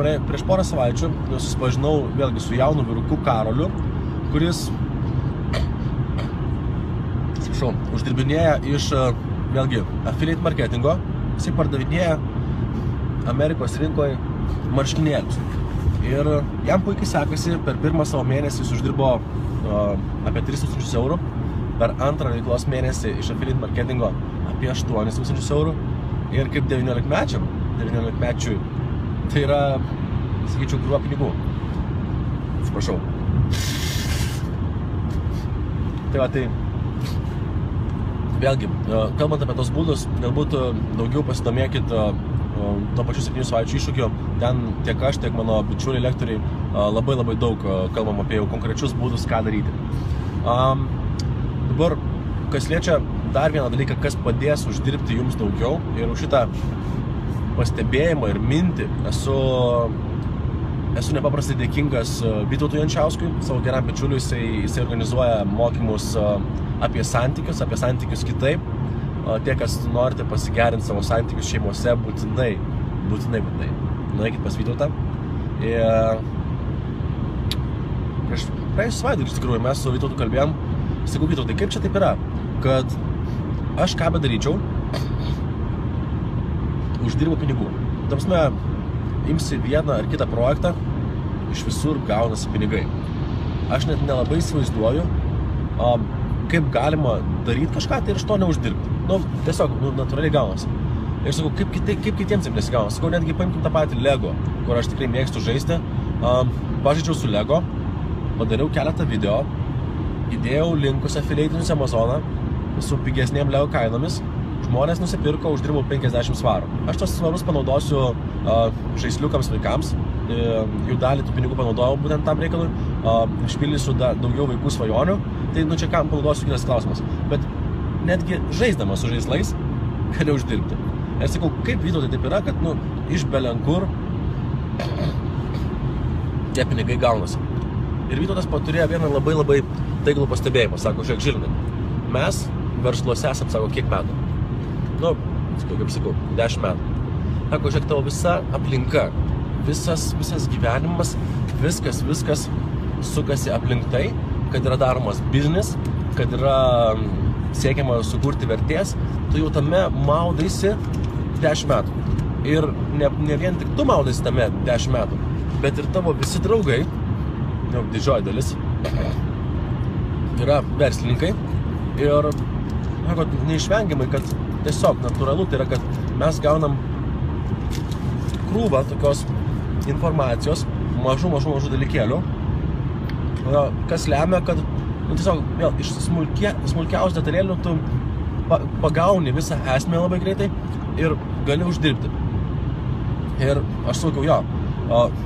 Prieš porą savaičių susipažinau vėlgi su jaunu vyruku Karoliu, kuris uždirbinėja iš vėlgi affiliate marketingo, jisai pardavinėja Amerikos rinkoje marškinėlius. Ir jam puikiai sekasi, per pirmą savo mėnesį jis uždirbo apie 3000 eurų, per antrą veiklos mėnesį iš affiliate marketingo apie 8000 eurų. Ir kaip 19-mečiui, tai yra, sakyčiau, krūva pinigų. Atsiprašau. Tai va, tai vėlgi, kalbant apie tos būdus, galbūt daugiau pasidomėkit to pačiu 7 savaičių iššūkiu. Ten tiek aš, tiek mano bičiuliai lektoriai labai daug kalbam apie jau konkrečius būdus, ką daryti. Dabar, kas liečia dar vieną dalyką, kas padės uždirbti jums daugiau, ir už šitą pastebėjimą ir mintį esu nepaprastai dėkingas Vytautui Jančiauskui, savo geram bičiuliui. Jisai organizuoja mokymus apie santykius kitaip. Tie, kas norite pasigerinti savo santykius šeimose, būtinai nueikit pas Vytautą. Prieš savaitgalį, iš tikrųjų, mes su Vytautu kalbėjom. Sakau, Vytautai, kaip čia taip yra, kad aš ką bedaryčiau, uždirbu pinigų. Tamsme, imsi vieną ar kitą projektą, iš visur gaunasi pinigai. Aš net nelabai įsivaizduoju, kaip galima daryti kažką tai ir iš to neuždirbti. Tiesiog, natūraliai gaunasi. Ir sakau, kaip kitiems taip nesigauna. Sakau, netgi paimkim tą patį Lego, kur aš tikrai mėgstu žaisti. Pažaidžiau su Lego, padariau keletą video, įdėjau linkus affiliatinius Amazoną su pigesnėm Lego kainomis. Žmonės nusipirko, uždirbau 50 svarų. Aš tos svarus panaudosiu žaisliukams vaikams. Jų dalį tų pinigų panaudojau būtent tam reikalui. Išpildysiu daugiau vaikų svajonių. Tai čia kam panaudosiu kitas klausimas. Bet netgi žaisdamas su žaislais gali uždirbti. Ir sakau, kaip Vytautai taip yra, kad iš belenkur tie pinigai gaunasi. Ir Vytautas turėjo vieną labai taiglų pastebėjimą. Sako, žiūrėk, Žilinai, mes versluose esam, sako, kiek metų? Nu, kaip sakau, 10 metų. Sako, žiūrėk, tavo visa aplinka, visas gyvenimas, viskas sukasi aplink tai, kad yra daromas biznis, kad yra siekiama sukurti vertės, tu jau tame maudaisi 10 metų. Ir ne vien tik tu maudaisi tame 10 metų, bet ir tavo visi draugai, jau didžioji dalis, yra verslininkai. Ir neišvengiamai, kad tiesiog natūralu tai yra, kad mes gaunam krūvą tokios informacijos, mažų dalykėlių, kas lemia, kad tiesiog vėl iš smulkiausių detalėlių tu pagauni visą esmę labai greitai ir gali uždirbti. Ir aš sakiau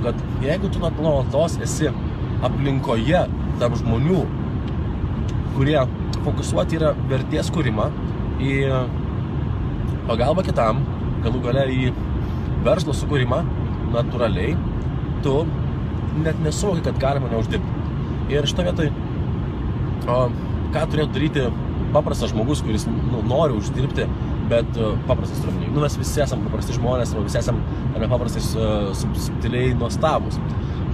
kad jeigu tu nuolatos esi aplinkoje tarp žmonių, kurie fokusuoti yra vertės kūrimą, į pagalbą kitam, galų gale į verslo sukūrimą, natūraliai, tu net nesuvoki, kad galima neuždirbti. Ir šitą vietoj, ką turėtų daryti paprastas žmogus, kuris nori uždirbti, bet paprastas turėtų. Mes visi esam paprasti žmonės, visi esam paprastai subtiliai nuostabus.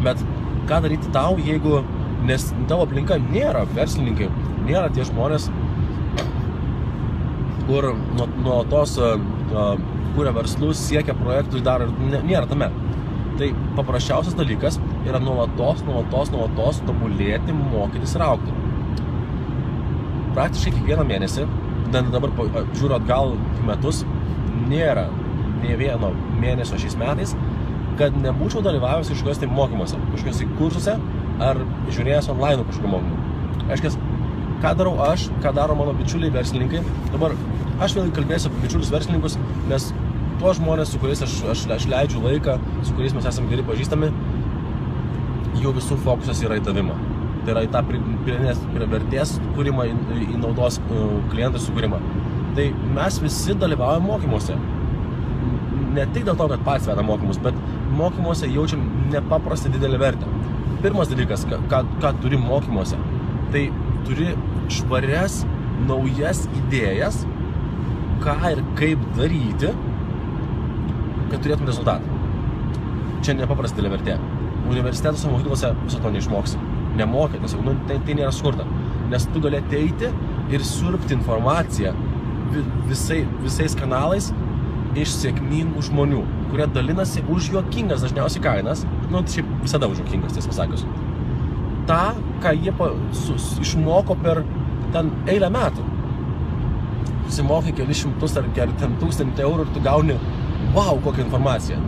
Bet ką daryti tau, jeigu, nes tavo aplinka nėra verslininkai, nėra tie žmonės, kur nuo tos kuria verslus, siekia projektus, daro ir nėra tame. Tai paprasčiausias dalykas yra nuolatos tobulėti, mokytis ir augti. Praktiškai kiekvieną mėnesį, dabar žiūriu atgal metus, nėra nė vieno mėnesio šiais metais, kad nebūčiau dalyvavęs kažkokios tai mokymuose, kažkokios tai kursuose ar žiūrėjęs online kažkokio mokymų. Aiškias, ką darau aš, ką daro mano bičiuliai verslininkai. Dabar aš vėl kalbėsiu apie bičiulius verslininkus, nes tuos žmonės, su kuriais aš leidžiu laiką, su kuriais mes esame geri pažįstami, jų visų fokusas yra į tavimą. Tai yra į tą vertės kūrimą, į naudos klientų sukūrimą. Tai mes visi dalyvaujame mokymuose. Ne tik dėl to, kad patys vedam mokymus, bet mokymuose jaučiam nepaprastai didelį vertę. Pirmas dalykas, ką turi mokymuose, tai turi švarias, naujas idėjas, ką ir kaip daryti, kad turėtum rezultatą. Čia nepaprastai didelė vertė. Universitetuose, mokyklose viso to neišmoksi. Nemokė, tiesiog, tai nėra skurta. Nes tu gali ateiti ir siurbti informaciją visais kanalais iš sėkmingų žmonių, kurie dalinasi už juokingas dažniausiai kainas, šiaip visada už juokingas, tiesą pasakius. Ta, ką jie išmoko per ten eilę metų. Susimokai kelis šimtus ar 1000 eurų ir tu gauni, wow, kokią informaciją.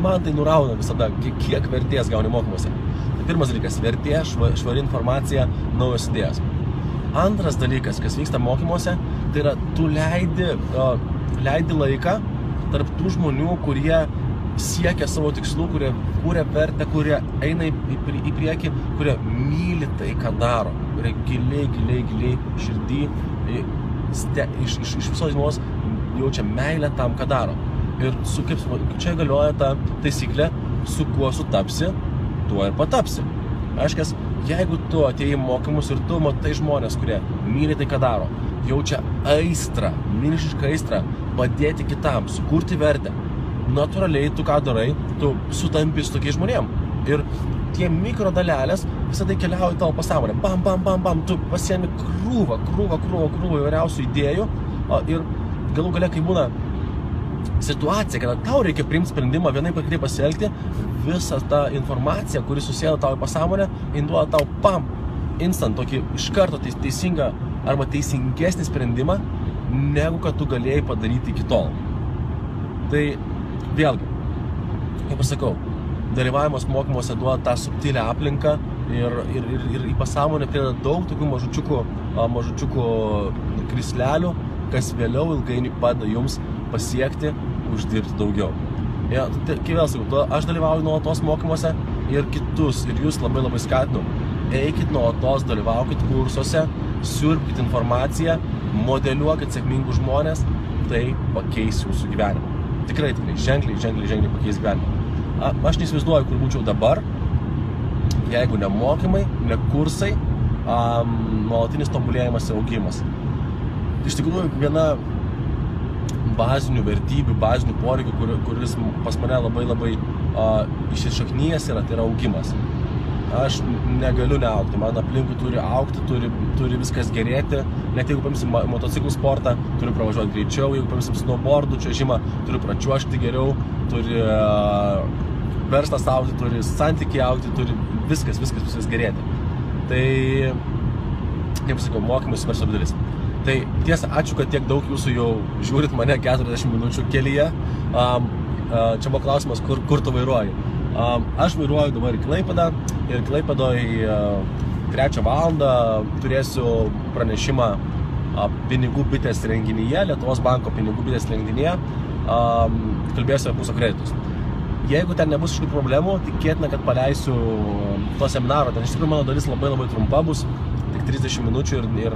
Man tai nurauna visada, kiek vertės gauni mokymuose. Tai pirmas dalykas, vertė, švari informacija, naujos idėjas. Antras dalykas, kas vyksta mokymuose, tai yra, tu leidi laiką tarp tų žmonių, kurie siekia savo tikslų, kurie kūrė vertę, kurie eina į priekį, kurie myli tai, ką daro, kurie giliai širdį, iš visos dienos jaučia meilę tam, ką daro. Ir čia galioja ta taisyklė, su kuo sutapsi, tuo ir patapsi. Aiškias, jeigu tu atėjai mokymus ir tu matai žmonės, kurie myli tai, ką daro, jaučia aistrą, milžinišką aistrą, padėti kitam, sukurti vertę, natūraliai tu ką darai, tu sutampi su tokiais žmonėm. Ir tie mikrodalelės visą tai keliauja į tavo pasąmonę. Bam, tu pasiemi krūvą įvairiausių idėjų ir galų gale, kai būna situacija, kada tau reikia priimti sprendimą vienaip ar kitaip pasielgti, visa ta informacija, kuri susėda tau į pasąmonę, induoda tau instant tokį iš karto teisingą arba teisingesnį sprendimą, negu kad tu galėjai padaryti iki tol. Tai vėlgi, kaip aš sakau, dalyvavimas mokymuose duoda tą subtilę aplinką ir į pasąmonę prideda daug tokių mažučiukų krislelių, kas vėliau ilgainiui padeda jums pasiekti, uždirbti daugiau. Kai vėl sakau, aš dalyvauju nuolatos mokymuose ir kitus, ir jūs labai skatinu. Eikit nuolatos, dalyvaukit kursuose, siurbkit informaciją, modeliuokit sėkmingus žmonės, tai pakeis jūsų gyvenimą. Tikrai, ženkliai pakeis gyvenimą. Aš neįsivaizduoju, kur būčiau dabar, jeigu ne mokymai, ne kursai, nuolatinis tobulėjimas ir augimas. Iš tikrųjų, viena bazinių vertybių, bazinių poreikių, kuris pas mane labai įsišaknyjęs yra, tai yra augimas. Aš negaliu neaugti, man aplinkui turi augti, turi viskas gerėti, net jeigu paimsim motociklų sportą, turiu pravažiuoti greičiau, jeigu paimsim snowboardų čiuožimą, turiu pračiuožti geriau, turi verslas augti, turi santykiai augti, turi viskas gerėti. Tai, kaip sakau, mokymai super svarbi dalis. Tai tiesa, ačiū, kad tiek daug jūsų jau žiūrit mane 40 minučių kelyje. Čia buvo klausimas, kur tu vairuoji. Aš vairuoju dabar į Klaipėdą ir Klaipėdoje 3 valandą turėsiu pranešimą pinigų bitės renginyje, Lietuvos banko pinigų bitės renginyje, kalbėsiu apie būsto kreditus. Jeigu ten nebus kažkokių problemų, tikėtina, kad paleisiu to seminaro. Ten iš tikrųjų mano dalis labai trumpa bus, tik 30 minučių ir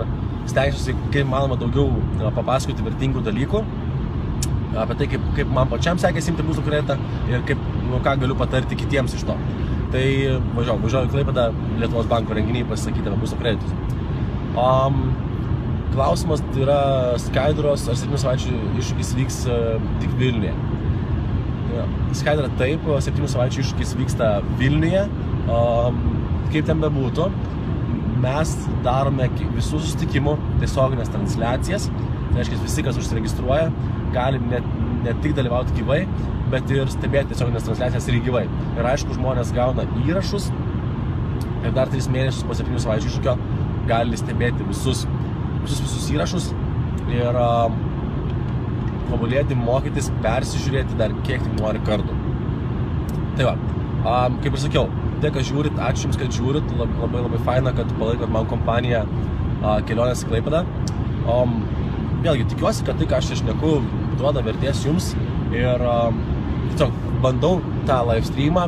stengsiuosi, kaip manoma, daugiau papasakoti vertingų dalykų apie tai, kaip man pačiam sekėsi imti būsto kreditą ir ką galiu patarti kitiems iš to. Tai važiuoju į Klaipėdą Lietuvos banko renginį pasisakyti apie būsto kreditus. Klausimas yra skaidros, ar 7 savaičių iššūkis vyks tik Vilniuje. Skaidra taip, 7 savaičių iššūkis vyksta Vilniuje. Kaip ten bebūtų, mes darome visų susitikimų tiesioginės transliacijas. Tai reiškia, visi, kas užsiregistruoja, gali ne tik dalyvauti gyvai, bet ir stebėti tiesioginės transliacijas ir gyvai. Ir aišku, žmonės gauna įrašus ir dar 3 mėnesius po 7 savaičių iššūkio gali stebėti visus įrašus ir tobulėti, mokytis, persižiūrėti dar kiek tik nori kartų. Tai va, kaip ir sakiau, tiek, kad žiūrit, ačiū Jums, kad žiūrit, labai faina, kad palaikot man kompaniją kelionės į Klaipėdą. Vėlgi, tikiuosi, kad tai, ką aš šneku, duoda vertės Jums ir tiesiog bandau tą live streamą.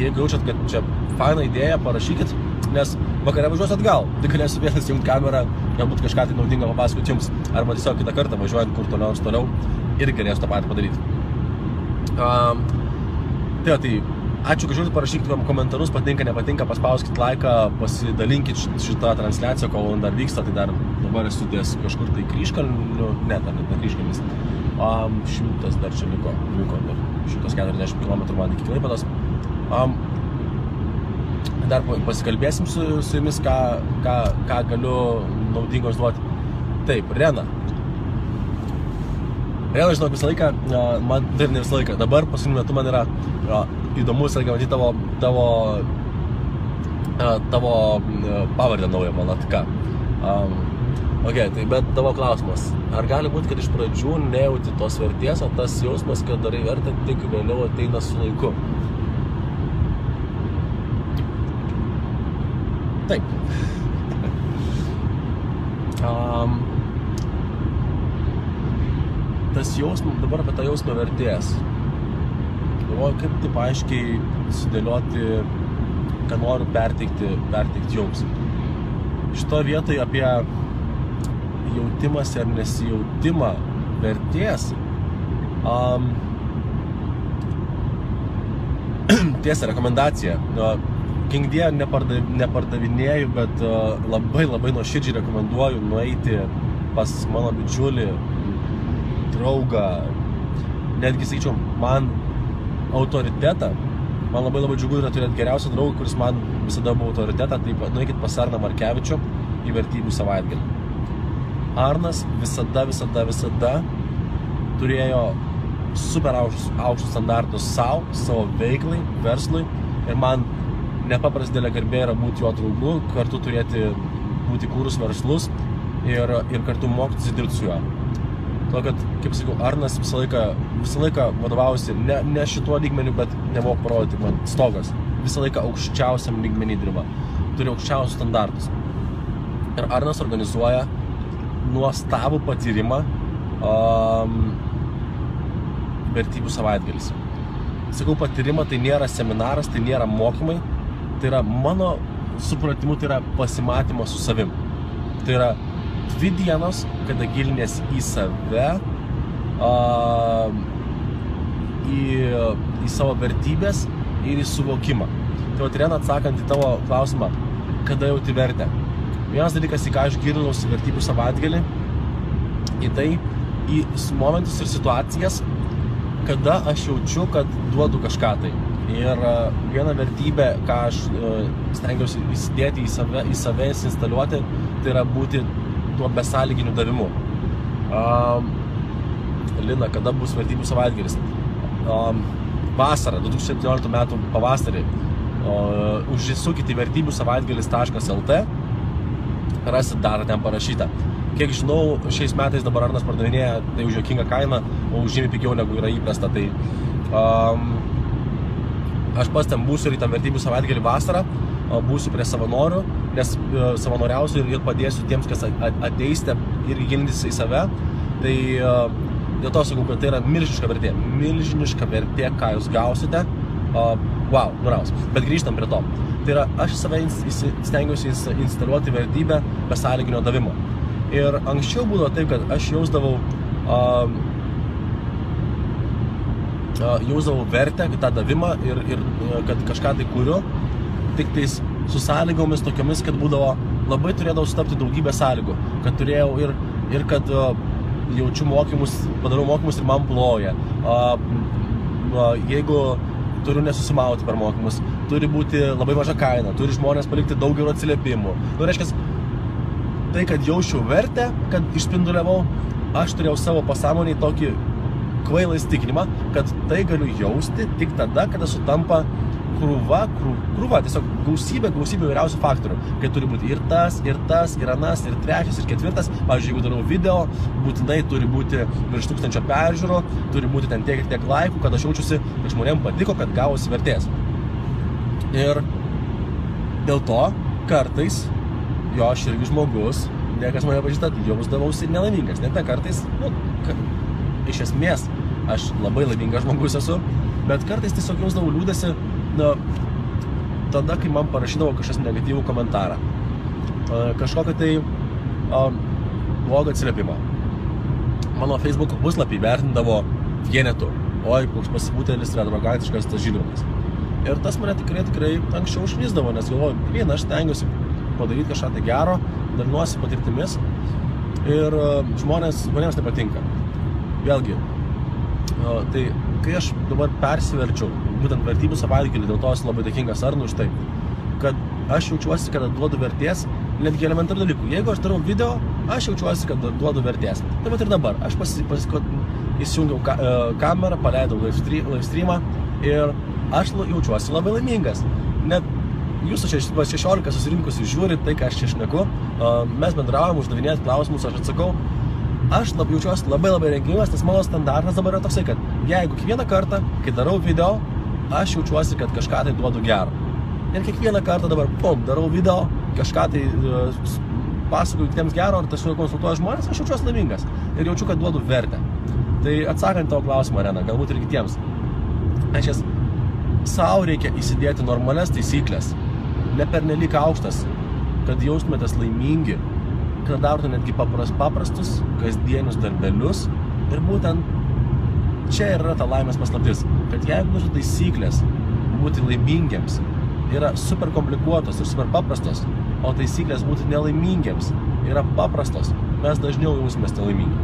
Jeigu jaučiat, kad čia faina idėja, parašykit, nes vakare važiuosiu atgal, tai galėsiu vėl įsijungti kamerą, galbūt kažką tai naudingo papasakoti Jums, arba tiesiog kitą kartą važiuojant kur toliau ir galėsiu tą patį padaryti. Tai ačiū, kad žiūrite, parašykite komentarus, patinka, nepatinka, paspauskit laiką, pasidalinkit šitą transliaciją, kol dar vyksta, tai dar dabar esu ties kažkur tai Kryžkalniu, ne Kryžkalnis, 100 dar čia liko dar 140 km man iki Klaipėdos. Dar pasikalbėsim su Jumis, ką galiu naudingos duoti. Taip, Rena, žinok, visą laiką, man taip ne visą laiką, dabar paskutiniu metu man yra įdomu visą laiką matyti tavo pavardę naują Valatka. Tai bet tavo klausimas, ar gali būti, kad iš pradžių nejauti tos vertės, o tas jausmas, kad darai vertę, tik vėliau ateina su laiku? Taip. Tas jausmas, dabar apie tą jausmą vertės. Galvoju, kaip taip aiškiai sudėlioti, ką noriu perteikti Jums. Šitoje vietoje apie jautimąsi ar nesijautimą vertės. Tiesa, rekomendacija. Kingdie nepardavinėju, bet labai nuoširdžiai rekomenduoju nueiti pas mano bičiulį, draugą, netgi sakyčiau, man autoritetą. Man labai džiugu yra turėti geriausią draugą, kuris man visada buvo autoritetą, tai nueikit pas Arną Markevičių į vertybių savaitgalį. Arnas visada turėjo super aukštus standartus savo veiklai, verslui, ir man nepaprastai didelė garbė yra būti jo draugu, kartu būti kūrus verslus ir kartu mokytis dirbti su juo. To, kad, kaip sakau, Arnas visą laiką vadovausi ne šituo lygmeniu, bet nemoku parodyti man stogas. Visą laiką aukščiausiam lygmenį dirba. Turi aukščiausius standartus. Ir Arnas organizuoja nuostabų patyrimą vertybių savaitgalis. Sakau, patyrimą tai nėra seminaras, tai nėra mokymai, tai yra mano supratimu, tai yra pasimatymas su savim. Tai yra 2 dienos, kada gilinės į save, į savo vertybės ir į suvokimą. Tai vat Irena, atsakant į tavo klausimą, kada jauti vertę. Vienas dalykas, į ką aš gilinausi vertybių savaitgalį, į tai, į momentus ir situacijas, kada aš jaučiu, kad duodu kažką tai. Ir viena vertybė, ką aš stengiausi įsidėti į save instaliuoti, tai yra būti tuo besąlyginiu davimu. Lina, kada bus vertybių savaitgalis? Vasarą, 2017 metų pavasarį, užsisukite į vertybių savaitgalis.lt, rasit dar ten parašyta. Kiek žinau, šiais metais dabar Arnas pardavinėja tai už juokingą kainą, o už žymiai pigiau negu yra įprasta. Tai aš pas ten būsiu ir į tą vertybių savaitgalį vasarą, būsiu prie savanorių, nes savanoriausiu ir padėsiu tiems, kas ateisite ir gilintis į save. Tai dėl to sakau, kad tai yra milžiniška vertė, ką jūs gausite. Wow, nuraus. Bet grįžtam prie to. Tai yra, aš save stengiausi instaliuoti vertybę besąlyginio davimo. Ir anksčiau būdavo taip, kad aš jausdavau vertę, tą davimą ir kad kažką tai kuriu, tik tais su sąlygomis tokiomis, kad būdavo, labai turėdavau sutapti daugybę sąlygų, kad turėjau ir kad jaučiu mokymus, padarau mokymus ir man ploja. Jeigu turiu nesusimauti per mokymus, turi būti labai maža kaina, turi žmonės palikti daug gerų atsiliepimų. Reiškia, tai, kad jausčiau vertę, kad išspinduliavau, aš turėjau savo pasąmonėj tokį kvailą įsitikinimą, kad tai galiu jausti tik tada, kada sutampa krūva, tiesiog gausybė įvairiausių faktorių. Kai turi būti ir tas, ir anas, ir trečias, ir ketvirtas. Pavyzdžiui, jeigu darau video, būtinai turi būti virš 1000 peržiūrų, turi būti ten tiek laikų, kad aš jaučiuosi, kad žmonėms patiko, kad gavosi vertės. Ir dėl to kartais, aš irgi žmogus, niekas mane pažįsta, jausdavausi nelaimingas. Net kartais, iš esmės, aš labai laimingas žmogus esu, bet kartais tiesiog jausdavau liūdesį, tada, kai man parašydavo kažkas negatyvų komentarą, kažkokią tai blogą atsiliepimą. Mano Facebook puslapį vertindavo vienetu, koks pasibūtėlis yra arogantiškas tas Žilvinas. Ir tas mane tikrai anksčiau užlysdavo, nes galvoju, aš stengiuosi padaryti kažką tai gero, dalinuosi patirtimis ir žmonėms tai patinka. Vėlgi, tai kai aš dabar persiverčiau būtent vertybių savaitgalį, dėl to esu labai dėkingas Arnui už tai, kad aš jaučiuosi, kad duodu vertės netgi elementarių dalykų. Jeigu aš darau video, aš jaučiuosi, kad duodu vertės. Taip pat ir dabar. Aš įsijungiau kamerą, paleidau live streamą ir aš jaučiuosi labai laimingas. Net jūsų 16 susirinkusių žiūrit tai, ką aš čia šneku, mes bendraujam, uždavinėjat klausimus, aš atsakau. Aš jaučiuosi labai rengingas, nes mano standartas dabar yra toksai, kad jeigu kiekvieną kartą, kai darau video, aš jaučiuosi, kad kažką tai duodu gero. Ir kiekvieną kartą dabar, darau video, kažką tai pasakoju kitiems gero, ar tiesiog konsultuoju žmonės, aš jaučiuosi laimingas ir jaučiu, kad duodu vertę. Tai atsakant tavo klausimą, Arena, galbūt ir kitiems. Sau reikia įsidėti normalias taisyklės, ne pernelyg aukštas, kad jaustumėtės laimingi, kad darote netgi paprastus, kasdienius darbelius. Ir būtent čia yra ta laimės paslaptis, kad jeigu mūsų taisyklės būti laimingiams yra super komplikuotos ir super paprastos, o taisyklės būti nelaimingiams yra paprastos, mes dažniau jausimės nelaimingi.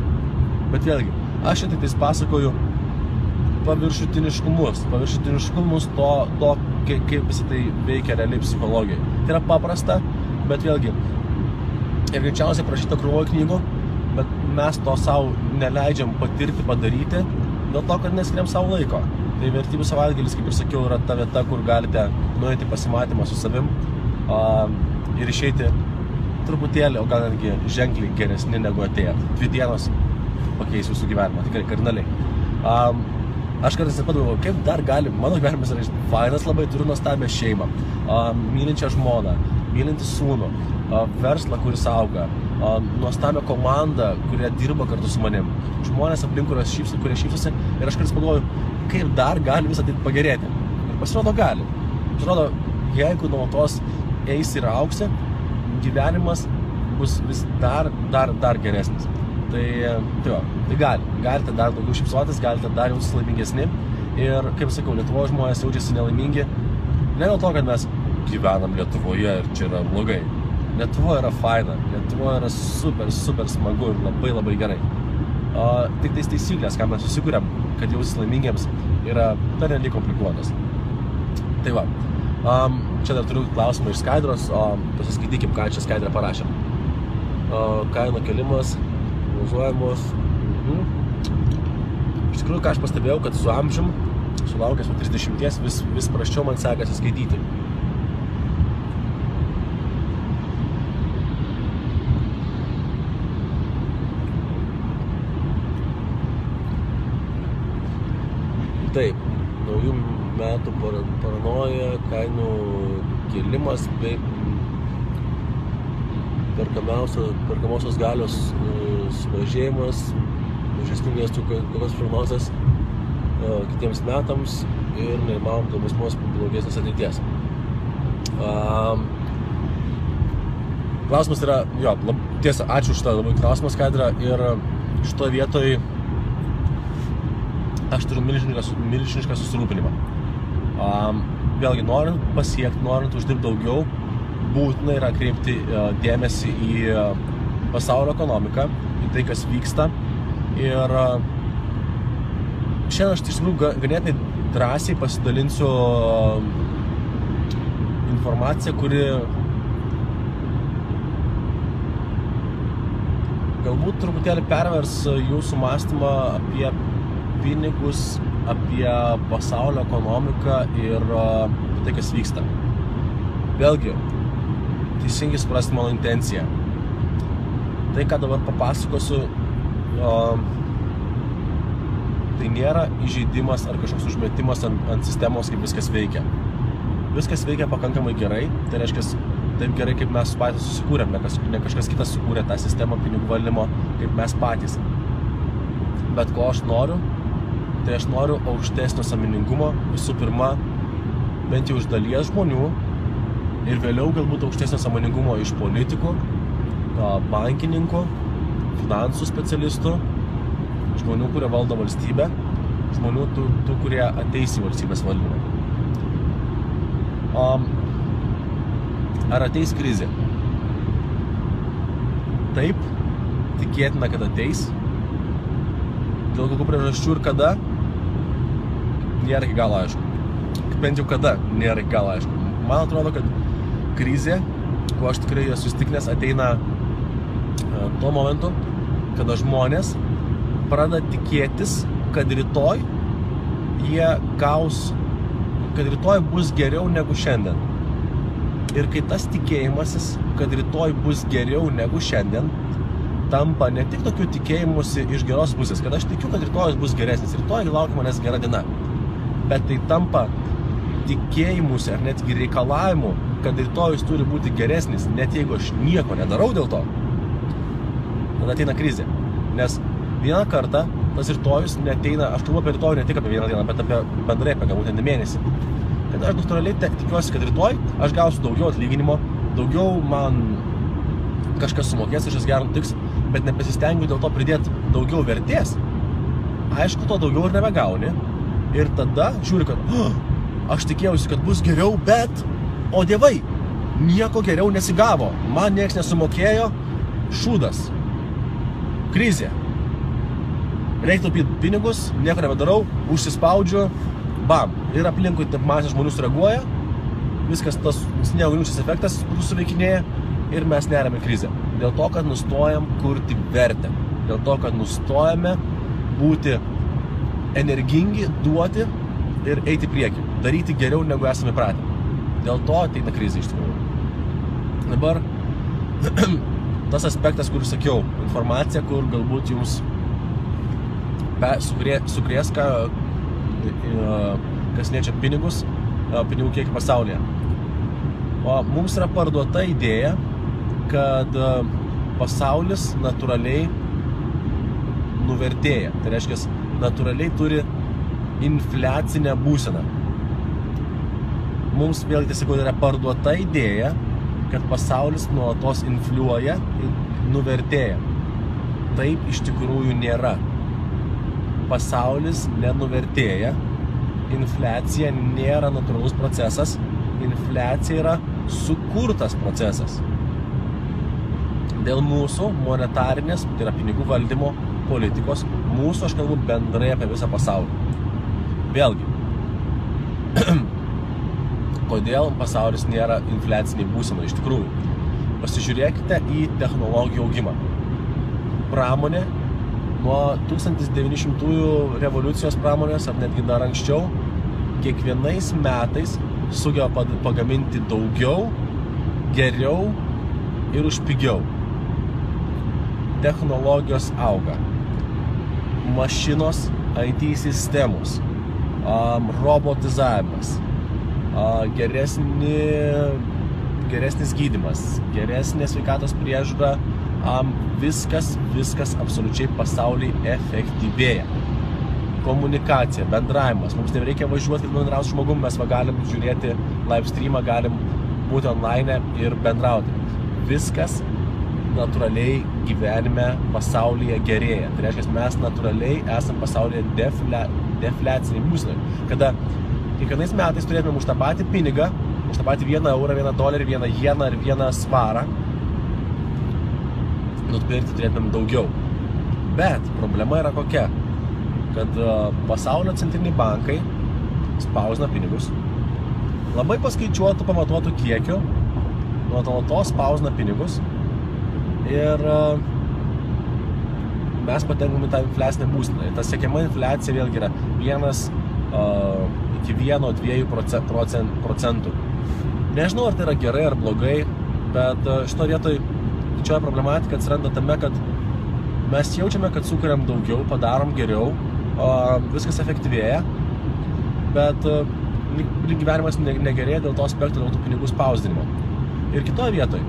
Bet vėlgi, aš čia tik tais pasakoju paviršutiniškumus to, kaip visi tai veikia realiai psichologijai. Tai yra paprasta, bet vėlgi, ir greičiausiai prašyta krūvoje knygų, bet mes to savo neleidžiam patirti, padaryti, dėl to, kad neskiriam savo laiko. Tai vertybių savaitgalis, kaip ir sakiau, yra ta vieta, kur galite nueiti pasimatymą su savim ir išeiti truputėlį, o gal netgi ženkliai geresni negu atėjot. 2 dienos pakeis jūsų gyvenimą, tikrai kardinaliai. Aš kartais nepagalvoju, kaip dar gali, mano gyvenimas yra fainas labai, turiu nuostabią šeimą, mylinčią žmoną, mylintį sūnų, verslą, kuris auga, nuostabią komandą, kurie dirba kartu su manim, žmonės aplink, kurie šypsosi, ir aš kartais pagalvoju, kaip dar gali visą tai pagerėti. Ir pasirodo gali. Pasirodo, jeigu nuolatos eisi ir auksi, gyvenimas bus vis dar geresnis. Tai galite dar daugiau šypsotis, galite dar jautis laimingesni. Ir, kaip sakau, Lietuvoje žmonės jaučiasi nelaimingi Ne dėl to, kad mes gyvenam Lietuvoje ir čia yra blogai. Lietuva yra faina, Lietuva yra super smagu ir labai gerai. Tik tais taisyklės, ką mes susikūrėm, kad jausis laimingiems, yra pernelyg komplikuotas. Tai va, čia dar turiu klausimą iš Skaidros, pasiskaitykim, ką čia Skaidra parašė. Kainų kelimas, prognozuojamos. Iš tikrųjų, ką aš pastebėjau, kad su amžium, sulaukęs 30, vis prasčiau man sekasi skaityti. Taip, naujų metų paranoja, kainų kėlimas bei perkamosios galios sumažėjimas, mažesnių miestų kokios prognozės kitiems metams ir neįmanom dėl būsimos blogesnės ateities. Klausimas yra, tiesa, ačiū už tą labai klausimą, Skaidra, ir šitoje vietoje aš turiu milžinišką susirūpinimą. Vėlgi, norint pasiekti, norint uždirbti daugiau, būtina yra kreipti dėmesį į pasaulio ekonomiką, į tai, kas vyksta. Ir šiandien aš iš tikrųjų ganėtinai drąsiai pasidalinsiu informaciją, kuri galbūt truputėlį pervers jūsų mąstymą apie pinigus, apie pasaulio ekonomiką ir tai, kas vyksta. Vėlgi, teisingai suprasti mano intenciją. Tai, ką dabar papasakosiu, tai nėra įžeidimas ar kažkoks užmetimas ant sistemos, kaip viskas veikia. Viskas veikia pakankamai gerai, tai reiškia taip gerai, kaip mes patys susikūrėm, ne kažkas kitas sukūrė tą sistemą pinigų valdymo, kaip mes patys. Bet ko aš noriu, tai aš noriu aukštesnio sąmoningumo, visų pirma, bent jau iš dalies žmonių ir vėliau galbūt aukštesnio sąmoningumo iš politikų, bankininkų, finansų specialistų, žmonių, kurie valdo valstybę, žmonių tų kurie ateis į valstybės valdymą. Ar ateis krizė? Taip, tikėtina, kad ateis. Dėl kokių priežasčių ir kada, nėra iki galo aišku. Bent jau kada, nėra iki galo aišku. Man atrodo, kad krizė, kuo aš tikrai esu įsitikinęs, ateina tuo momentu, kada žmonės pradeda tikėtis, kad rytoj jie gaus, kad rytoj bus geriau negu šiandien. Ir kai tas tikėjimasis, kad rytoj bus geriau negu šiandien, tampa ne tik tokiu tikėjimusi iš geros pusės, kad aš tikiu, kad rytojus bus geresnis, rytoj laukia manęs gera diena, bet tai tampa tikėjimusi ar netgi reikalavimu, kad rytojus turi būti geresnis, net jeigu aš nieko nedarau dėl to, tada ateina krizė. Nes vieną kartą tas rytojus neateina, aš kalbu apie rytojų ne tik apie vieną dieną, bet apie bendrai apie galbūt mėnesį. Kad aš natūraliai tikiuosi, kad rytoj aš gausiu daugiau atlyginimo, daugiau man kažkas sumokės, kažkas gerą nutiks, bet nepasistengiu dėl to pridėti daugiau vertės. Aišku, to daugiau ir nebegauni. Ir tada žiūri, kad aš tikėjausi, kad bus geriau, bet, o dievai, nieko geriau nesigavo. Man nieks nesumokėjo, šūdas, krizė. Reikia taupyti pinigus, nieko nebedarau, užsispaudžiu, bam. Ir aplinkui taip masė žmonių sureaguoja, viskas tas sniego gniūžtės efektas suveikinėja ir mes neriame krizę. Dėl to, kad nustojam kurti vertę. Dėl to, kad nustojame būti energingi, duoti ir eiti priekį. Daryti geriau, negu esame pratę. Dėl to ateina krizė iš tikrųjų. Dabar tas aspektas, kur sakiau, informacija, kur galbūt jums sukrės, kas liečia pinigus, pinigų kiekį pasaulyje. O mums yra parduota idėja, kad pasaulis natūraliai nuvertėja. Tai reiškia, natūraliai turi infliacinę būseną. Mums vėlgi tiesiog yra parduota idėja, kad pasaulis nuolatos infliuoja ir nuvertėja. Taip iš tikrųjų nėra. Pasaulis nenuvertėja, infliacija nėra natūralus procesas, infliacija yra sukurtas procesas. Dėl mūsų monetarinės, tai yra pinigų valdymo politikos, mūsų, aš kalbu bendrai apie visą pasaulį. Vėlgi, kodėl pasaulis nėra infliaciniai būsenai iš tikrųjų? Pasižiūrėkite į technologijų augimą. Pramonė nuo 1900 revoliucijos pramonės, ar netgi dar anksčiau, kiekvienais metais sugeba pagaminti daugiau, geriau ir už pigiau. Technologijos auga. Mašinos, IT sistemos, robotizavimas, geresnis gydymas, geresnė sveikatos priežiūra, viskas absoliučiai pasaulyje efektyvėja. Komunikacija, bendravimas, mums nereikia važiuoti, kad bendrauti su žmogum, mes galim žiūrėti live streamą, galim būti online ir bendrauti. Viskas natūraliai gyvenime pasaulyje gerėja. Tai reiškia, mes natūraliai esam pasaulyje defliaciniai būsenai. Kada kiekvienais metais turėtume už tą patį pinigą, už tą patį 1 eurą, 1 dolerį, 1 jeną ir 1 svarą, nupirkti turėtume daugiau. Bet problema yra kokia, kad pasaulio centriniai bankai spausina pinigus, labai paskaičiuotų, pamatuotų kiekių, nuolatos spausina pinigus ir mes patenkam į tą infliacinę būseną. Ta siekiama infliacija vėlgi yra 1 iki 1-2 procentų. Nežinau, ar tai yra gerai ar blogai, bet šito vietoj didžioji problematika atsiranda tame, kad mes jaučiame, kad sukuriam daugiau, padarom geriau, viskas efektyvėja, bet gyvenimas negerėja dėl to aspektų, dėl tų pinigų spausdinimo. Ir kitoje vietoje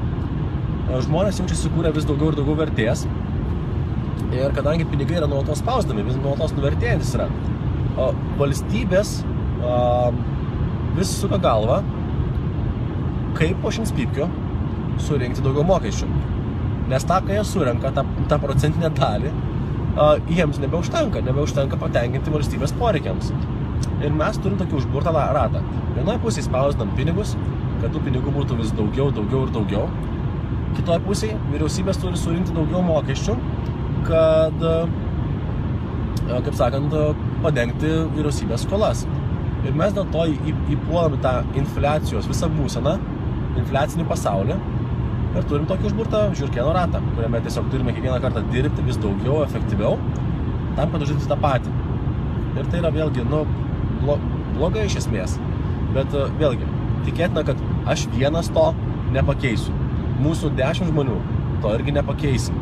žmonės jaučiasi sukūrę vis daugiau ir daugiau vertės ir kadangi pinigai yra nuolatos spausdami, vis nuolatos nuvertėjantis yra, valstybės vis suka galvą, kaip po šimtspypkio surinkti daugiau mokesčių. Nes tą, kai jie surenka, tą procentinę dalį, jiems nebeužtenka patenkinti valstybės poreikiams. Ir mes turim tokį užburtą ratą. Vienoje pusėje spausdinam pinigus, kad tų pinigų būtų vis daugiau ir daugiau. Kitoje pusėje vyriausybės turi surinkti daugiau mokesčių, kad, kaip sakant, padengti vyriausybės skolas. Ir mes dėl to įpuolame tą infliacijos visą būseną, infliacinį pasaulį ir turim tokį užburtą žiurkėno ratą, kuriame tiesiog turime kiekvieną kartą dirbti vis daugiau, efektyviau, tam, kad uždirbti tą patį. Ir tai yra vėlgi, blogai iš esmės. Bet vėlgi, tikėtina, kad aš vienas to nepakeisiu. Mūsų 10 žmonių to irgi nepakeisim.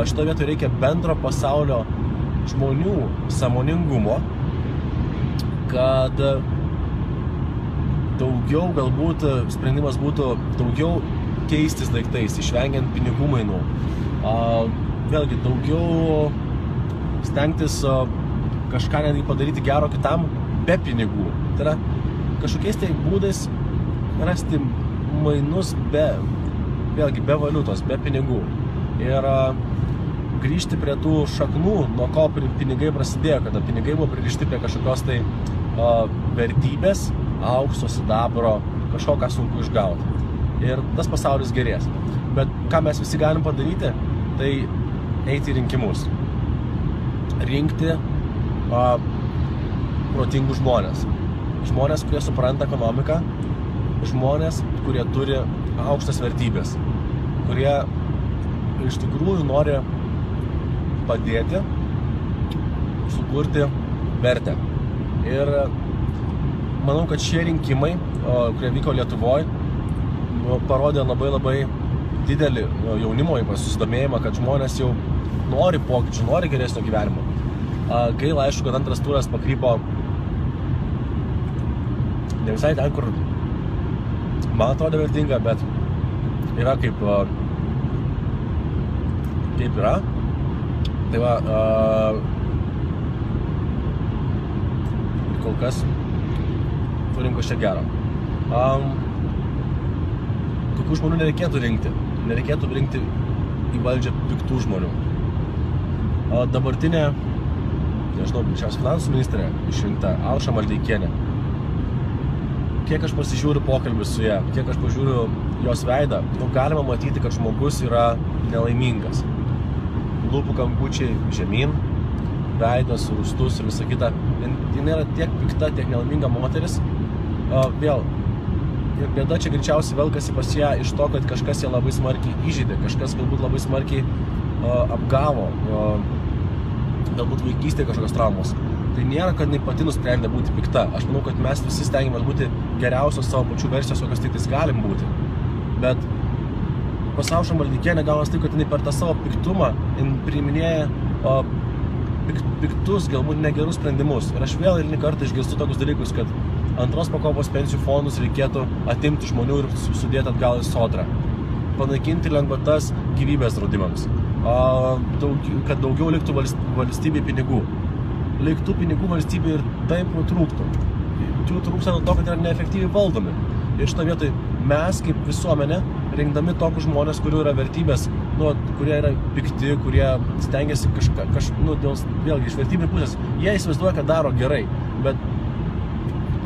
Šito vietoje reikia bendro pasaulio žmonių sąmoningumo, kad daugiau galbūt sprendimas būtų daugiau keistis daiktais, išvengiant pinigų mainų. Vėlgi, daugiau stengtis kažką netgi padaryti gero kitam be pinigų. Tai yra kažkokiais tai būdais rasti mainus vėlgi be valiutos, be pinigų. Ir grįžti prie tų šaknų, nuo ko pinigai prasidėjo, kada pinigai buvo pririšti prie kažkokios tai vertybės, aukso, sidabro, kažko, ką sunku išgauti. Ir tas pasaulis gerės. Bet ką mes visi galim padaryti, tai eiti į rinkimus. Rinkti protingus žmonės. Žmonės, kurie supranta ekonomiką, žmonės, kurie turi aukštas vertybės, kurie iš tikrųjų nori padėti sukurti vertę. Ir manau, kad šie rinkimai, kurie vyko Lietuvoje, parodė labai didelį jaunimo susidomėjimą, kad žmonės jau nori pokyčių, nori geresnio gyvenimo. Gaila, aišku, kad antras turas pakrypo ne visai ten, kur man atrodo vertinga, bet yra kaip yra. Tai va, kol kas turim kažkiek gero. Tokių žmonių nereikėtų rinkti. Nereikėtų rinkti į valdžią piktų žmonių. Dabartinė, nežinau, šios finansų ministrė išrinkta Alša Maldeikienė. kiek aš pasižiūriu pokalbį su ją, kiek aš pažiūriu jos veidą, galima matyti, kad žmogus yra nelaimingas. Lūpų kampučiai žemyn, veidas, rūstus ir visa kita. Jis yra tiek pikta, tiek nelaiminga moteris. Vėl, ir bėda čia greičiausiai velkasi pas ją iš to, kad kažkas ją labai smarkiai įžeidė, kažkas galbūt labai smarkiai apgavo, galbūt vaikystėje kažkokios traumos. Tai nėra, kad jinai pati nusprendė būti pikta. Aš manau, kad mes visi stengiamės būti geriausios savo pačių versijos, kokios tik galim būti. Bet pasaušo maldykienė gaunas taip, kad jinai per tą savo piktumą priiminėja piktus, galbūt negerus sprendimus. Ir aš vėl eilinį kartą išgirstu tokius dalykus, kad antros pakopos pensijų fondus reikėtų atimti žmonių ir sudėti atgal į sodrą. Panaikinti lengvatas gyvybės draudimams. Kad daugiau liktų valstybei pinigų. Liktų pinigų valstybei ir taip trūktų. Jų trūksta nuo to, kad yra neefektyviai valdomi. Ir šitą vietoj mes kaip visuomenė, rinkdami tokius žmonės, kurių yra vertybės, kurie yra pikti, kurie stengiasi vėlgi iš vertybinių pusės, jie įsivaizduoja, kad daro gerai, bet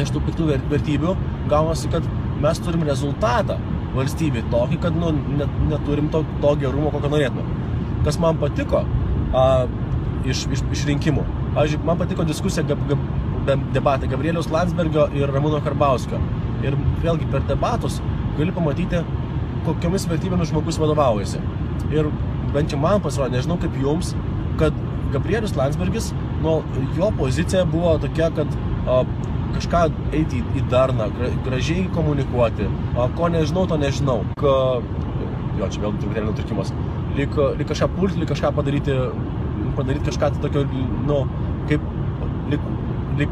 iš tų piktų vertybių gaunasi, kad mes turim rezultatą valstybei tokį, kad neturim to gerumo, kokio norėtume. Kas man patiko iš rinkimų. Pavyzdžiui, man patiko diskusija debatai Gabrieliaus Landsbergio ir Ramūno Karbauskio. Ir vėlgi per debatus gali pamatyti, kokiomis vertybėmis žmogus vadovaujasi. Ir bent jau man pasirodė, nežinau kaip jums, kad Gabrielius Landsbergis, jo pozicija buvo tokia, kad kažką eiti į darną, gražiai komunikuoti, ko nežinau, to nežinau. Jo, čia vėl truputėlį nutrūkimas. Lyg kažką pulti, lyg kažką padaryti kažką tokio, lyg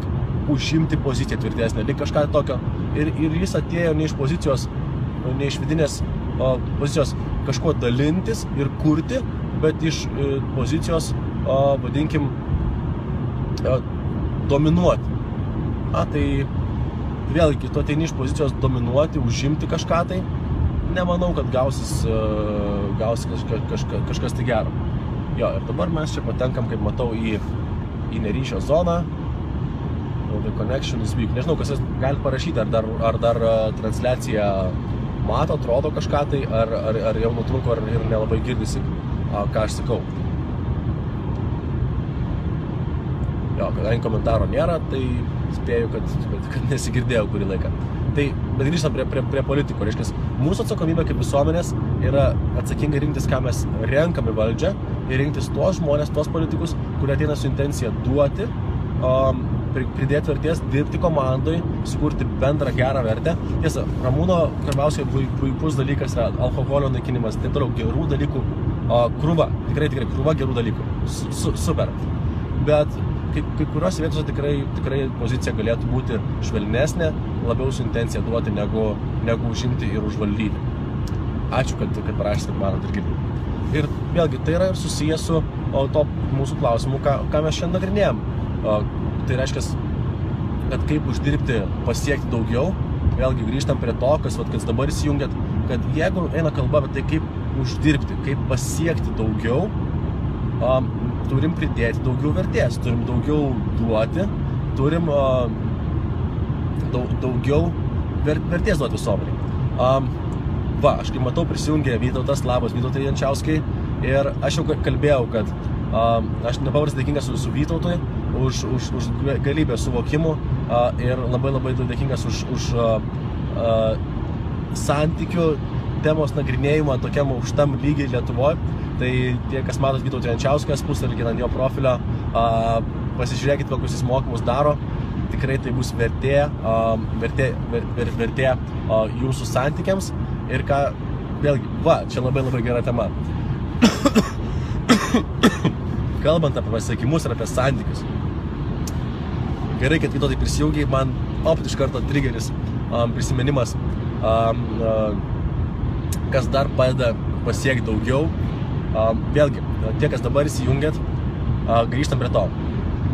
užimti poziciją tvirtesnę, lyg kažką tokio. Ir jis atėjo ne iš pozicijos, ne iš vidinės pozicijos kažko dalintis ir kurti, bet iš pozicijos, vadinkim, dominuoti. Tai vėlgi, tu ateini iš pozicijos dominuoti, užimti kažką tai, nemanau, kad gausis kažkas tai gero. Jo, ir dabar mes čia patenkam, kaip matau, į neryšio zoną. The connection is weak. Nežinau, kas jūs galite parašyti, ar dar transliacija mato, atrodo kažką tai, ar jau nutrūko, ar ir nelabai girdisi, ką aš sakau. Jo, kadangi komentaro nėra, tai spėju, kad nesigirdėjau kurį laiką. Bet grįžtam prie politikų. Reiškia, mūsų atsakomybė kaip visuomenės yra atsakingai rinktis, ką mes renkame valdžią, ir rinktis tuos žmonės, tuos politikus, kurie ateina su intencija duoti, pridėti vertės, dirbti komandai, sukurti bendrą gerą vertę. Tiesa, Ramūno Karbauskio puikus dalykas yra alkoholio naikinimas, taip toliau, gerų dalykų, krūva, tikrai krūva gerų dalykų, super. Bet kai kuriuose vietose tikrai pozicija galėtų būti švelnesnė, labiau su intencija duoti, negu užimti ir užvaldyti. Ačiū, kad parašysite, manot ir girdite. Ir vėlgi, tai yra ir susijęs su to mūsų klausimu, ką mes šiandien nagrinėjom. Tai reiškia, kad kaip uždirbti, pasiekti daugiau, vėlgi grįžtam prie to, kas dabar įsijungiat, kad jeigu eina kalba apie tai, kaip uždirbti, kaip pasiekti daugiau, turim pridėti daugiau vertės, turim daugiau duoti, turim daugiau vertės duoti visuomeniai. Aš kaip matau prisijungė Vytautas, labas Vytautai Jančiauskai, ir aš jau kalbėjau, kad aš nepaprastai dėkingas su Vytautui už galybę suvokimų ir labai dėkingas už santykių temos nagrinėjimą tokiam aukštam lygiai Lietuvoje. Tai tie, kas matot Vytautą Jančiauskas, puslapį ant jo profilio, pasižiūrėkit, kokius jis mokymus daro. Tikrai tai bus vertė jūsų santykiams. Ir ką, vėlgi, čia labai gera tema. Kalbant apie pasiekimus ir apie santykius. Gerai, kad Vytautai prisijungiai, man iš karto triggeris prisiminimas, kas dar padeda pasiekti daugiau. Vėlgi, tie, kas dabar įsijungėt, grįžtam prie to.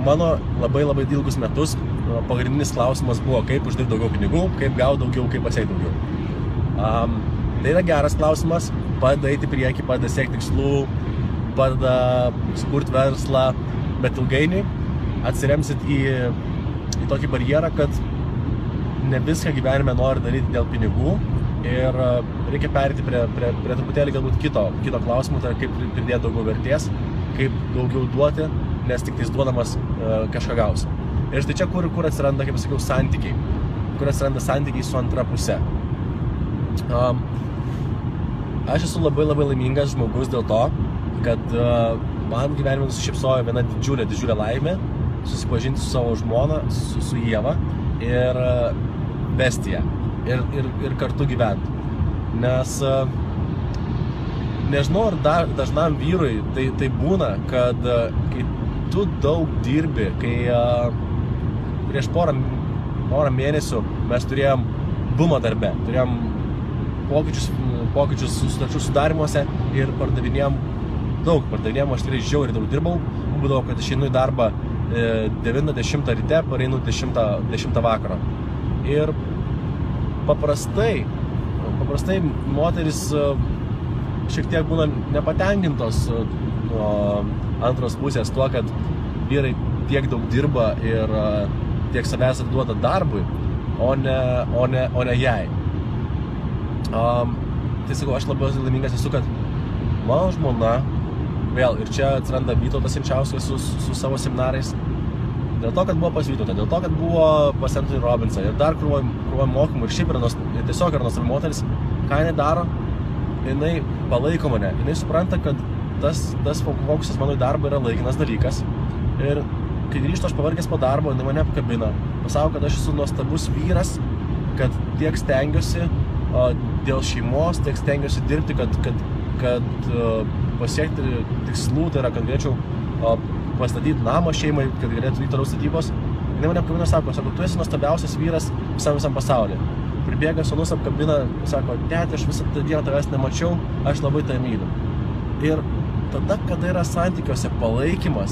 Mano labai ilgus metus pagrindinis klausimas buvo, kaip uždirbti daugiau pinigų, kaip gauti daugiau, kaip pasiekti daugiau. Tai yra geras klausimas, padeda eiti priekį, padeda siekti tikslų, padeda sukurti verslą, bet ilgainiui atsiremsit į tokį barjerą, kad ne viską gyvenime nori daryti dėl pinigų ir reikia perėti prie truputėlį galbūt kito klausimų, tai kaip pridėti daugiau vertės, kaip daugiau duoti, nes tik tais duodamas kažką gausi. Ir štai čia, kur atsiranda, kaip sakiau, santykiai, kur atsiranda santykiai su antra pusė. Aš esu labai laimingas žmogus dėl to, kad man gyvenime nusišypsojo viena didžiulė laimė susipažinti su savo žmona, su Ieva ir vesti ją ir kartu gyventi. Nes nežinau, ar dažnam vyrui tai būna, kad kai tu daug dirbi, kai prieš porą mėnesių mes turėjom bumą darbe, turėjom pokyčius sutarčių sudarimuose ir pardavinėjom, aš tikrai žiauriai daug dirbau, būdavo, kad išeinu į darbą 9-10 ryte, pareinu 10 vakaro. Ir paprastai moteris šiek tiek būna nepatenkintos nuo antros pusės tuo, kad vyrai tiek daug dirba ir tiek savęs atiduoda darbui, o ne jai. Tai sakau, aš labai laimingas esu, kad mano žmona, vėl, ir čia atsiranda Vytautas Jančiauskas su savo seminarais, dėl to, kad buvo pas Vytautą, dėl to, kad buvo pas Anthony Robbinsą ir dar krūvoj mokymų ir šiaip tiesiog yra nuostabi moteris, ką jinai daro, jinai palaiko mane, jinai supranta, kad tas fokusas mano į darbą yra laikinas dalykas ir kai grįžtu aš pavargęs po darbo, jinai mane apkabina, pasako, kad aš esu nuostabus vyras, kad tiek stengiuosi dėl šeimos, tiek stengiuosi dirbti, kad pasiekti tikslų, tai yra, kad galėčiau pastatyti namą šeimai, kad galėtų vykti toliau statybos. Jinai mane apkabina, sako, tu esi nuostabiausias vyras visam pasaulyje. Pribėga sūnus, apkabina, sako, tėti, aš visą dieną tavęs nemačiau, aš labai tave myliu. Ir tada, kada yra santykiuose palaikymas,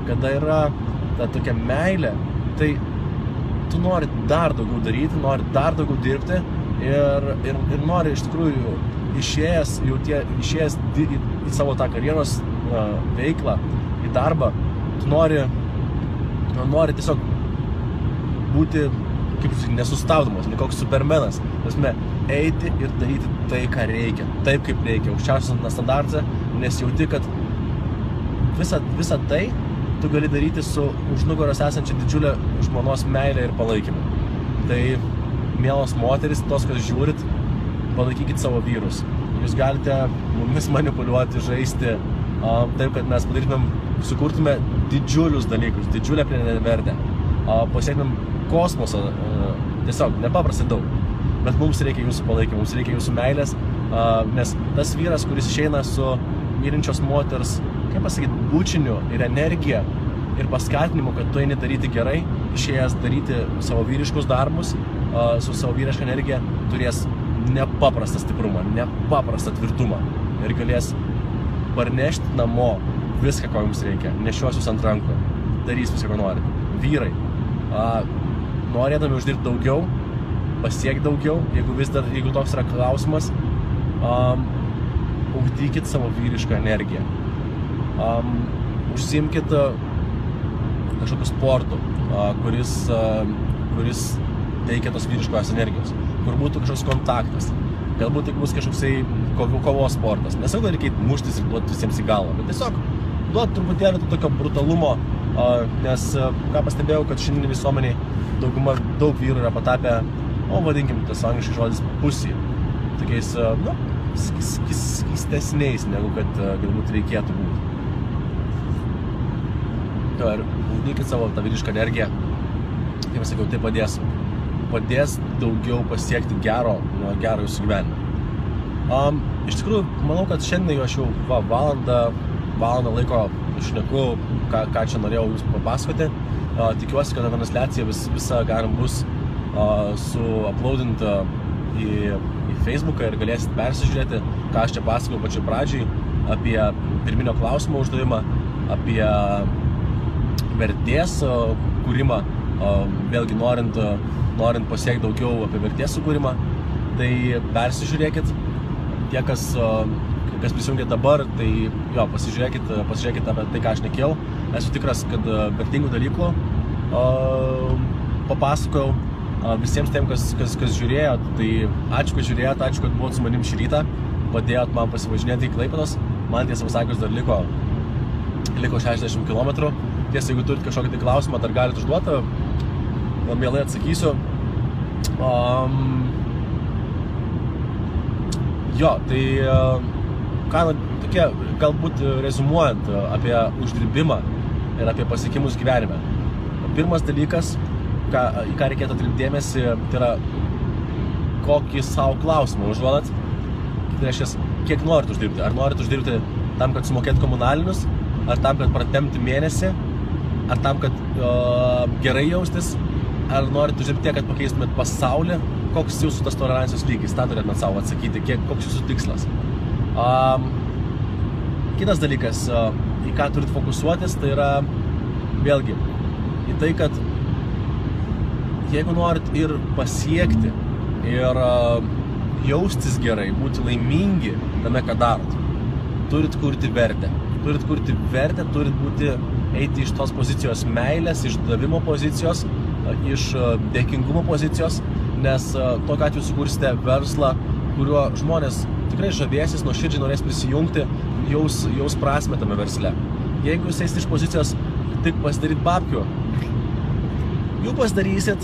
kada yra ta tokia meilė, tai tu nori dar daugiau daryti, nori dar daugiau dirbti ir nori iš tikrųjų išėjęs į savo tą karjeros veiklą, į darbą, tu nori tiesiog būti kaip nesustabdomas, ne koks supermenas, eiti ir daryti tai, ką reikia, taip kaip reikia, aukščiausias standartą, nes jauti, kad visą tai tu gali daryti su už nugaros esančia didžiulė žmonos meilė ir palaikymu. Tai, mielos moteris, tos, kas žiūrit, palaikykit savo vyrus. Jūs galite mumis manipuliuoti, žaisti, taip, kad mes sukurtume didžiulius dalykus, didžiulę pridėtinę vertę, pasiektumėm kosmosą, tiesiog nepaprastai daug. Bet mums reikia jūsų palaikymų, mums reikia jūsų meilės, nes tas vyras, kuris išeina su mylinčios moters, kaip pasakyti, bučiniu ir energija ir paskatinimu, kad tu eini daryti gerai, išėjęs daryti savo vyriškus darbus, su savo vyriška energija, turės nepaprastą stiprumą, nepaprastą tvirtumą ir galės parnešti namo viską, ko jums reikia, nešios jūs ant rankų, darys viską, ko nori. Vyrai, norėdami uždirbti daugiau, pasiekti daugiau, jeigu toks yra klausimas, ugdykit savo vyrišką energiją. Užsiimkit kažkokiu sportu, kuris teikia tos vyriškos energijos, kur būtų kažkoks kontaktas. Galbūt tai bus kažkoksai kovos sportas. Nesakau, kad reikia muštis ir duoti visiems į galvą, bet tiesiog duoti truputėlį tokio brutalumo, nes ką pastebėjau, kad šiandien visuomeniai daug vyrų yra patapę, vadinkim, tas angliškai žodis pussy, tokiais, skystesniais, negu kad galbūt reikėtų būti. Ir ugdykit savo tą vyrišką energiją, kaip sakiau, tai padės daugiau pasiekti gero jūsų gyvenime. Iš tikrųjų, manau, kad šiandien aš jau valandą laiko šneku, ką čia norėjau jums papasakoti. Tikiuosi, kad transliacija visa galim bus uploadinta į Facebooką ir galėsit persižiūrėti, ką aš čia pasakau pačioj pradžiai apie pirminio klausimo uždavimą, apie vertės kūrimą, vėlgi norint pasiekti daugiau apie vertės sukūrimą, tai persižiūrėkit, tie, kas prisijungia dabar, tai jo, pasižiūrėkit apie tai, ką aš nekėjau. Esu tikras, kad vertingų dalykų papasakojau, Visiems tiem, kas žiūrėjo, tai ačiū, kad žiūrėjot, ačiū, kad buvot su manim šį rytą, padėjot man pasivažinėti į Klaipėdos, man tiesą pasakius dar liko 60 km. Tiesa, jeigu turit kažkokį tai klausimą, dar galite užduoti, mielai atsakysiu. Jo, tai tokie, galbūt rezumuojant apie uždirbimą ir apie pasiekimus gyvenime. Pirmas dalykas, į ką reikėtų atkreipti dėmesį, tai yra kokį savo klausimą užduodat. Tai reiškia, kiek norit uždirbti. Ar norit uždirbti tam, kad sumokėt komunalinius, ar tam, kad pratempti mėnesį, ar tam, kad gerai jaustis, ar norit uždirbti tiek, kad pakeistumėt pasaulį, koks jūsų tas tolerancijos lygis, tą turėtumėt savo atsakyti, koks jūsų tikslas. Kitas dalykas, į ką turit fokusuotis, tai yra vėlgi į tai, kad jeigu norit ir pasiekti, ir jaustis gerai, būti laimingi tame, ką darot, turit kurti vertę. Turit kurti vertę, turit eiti iš tos pozicijos meilės, iš davimo pozicijos, iš dėkingumo pozicijos, nes tokiu atveju sukursite verslą, kuriuo žmonės tikrai žavėsis, nuoširdžiai norės prisijungti, jaus prasmę tame versle. Jeigu jūs eisite iš pozicijos tik pasidaryt babkių, jų pasidarysit,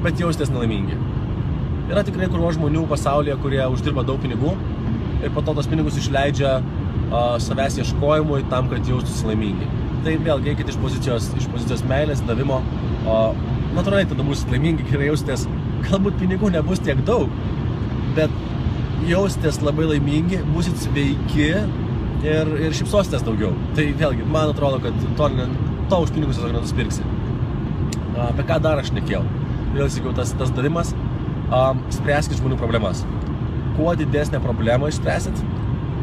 bet jausitės nelaimingi. Yra tikrai krūva žmonių pasaulyje, kurie uždirba daug pinigų ir po to tos pinigus išleidžia savęs ieškojimui tam, kad jaustųsi laimingi. Tai vėlgi eikite iš pozicijos meilės, davimo, natūraliai tada būsit laimingi, gerai jaustės, galbūt pinigų nebus tiek daug, bet jaustės labai laimingi, būsit sveiki ir šypsositės daugiau. Tai vėlgi, man atrodo, kad to už pinigus tiesiog nenuspirksi. Apie ką dar aš nekėjau? Vėl sakiau, tas davimas, spręskit žmonių problemas. Kuo didesnę problemą išspręsit,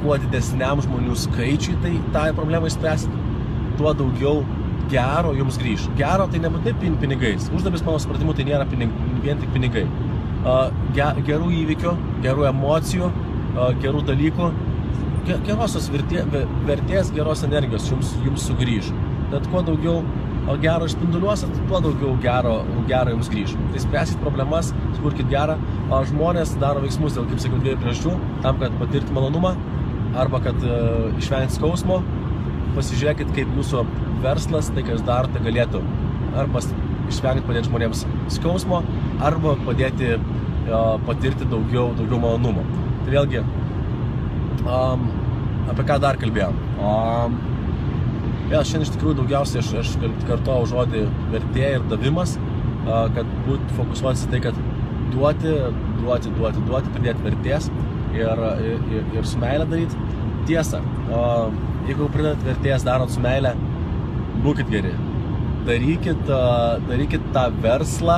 kuo didesniam žmonių skaičiui tą problemą išspręsit, tuo daugiau gero jums grįš. Gero tai nebūtinai pinigais. Uždarbis, mano supratimu, tai nėra vien tik pinigai. Gerų įvykių, gerų emocijų, gerų dalykų, gerosios vertės, geros energijos jums sugrįž. Tad kuo daugiau gero išspinduliuosit, tuo daugiau gero jums grįž. Tai spręskit problemas, sukurkit gerą. Žmonės daro veiksmus dėl, kaip sakiau, dviejų priežasčių, tam, kad patirti malonumą, arba kad išvengti skausmo. Pasižiūrėkit, kaip jūsų verslas, tai, ką jūs darote, galėtų arba išvengti padėti žmonėms skausmo, arba padėti patirti daugiau malonumo. Tai vėlgi, apie ką dar kalbėjom. Vėl šiandien iš tikrųjų daugiausiai aš kartuoju žodį vertė ir davimas, kad būtų fokusuotis į tai, kad duoti, pridėti vertės ir su meilė daryti. Tiesa, jeigu pridėt vertės darot su meilė, būkit geri. Darykit tą verslą,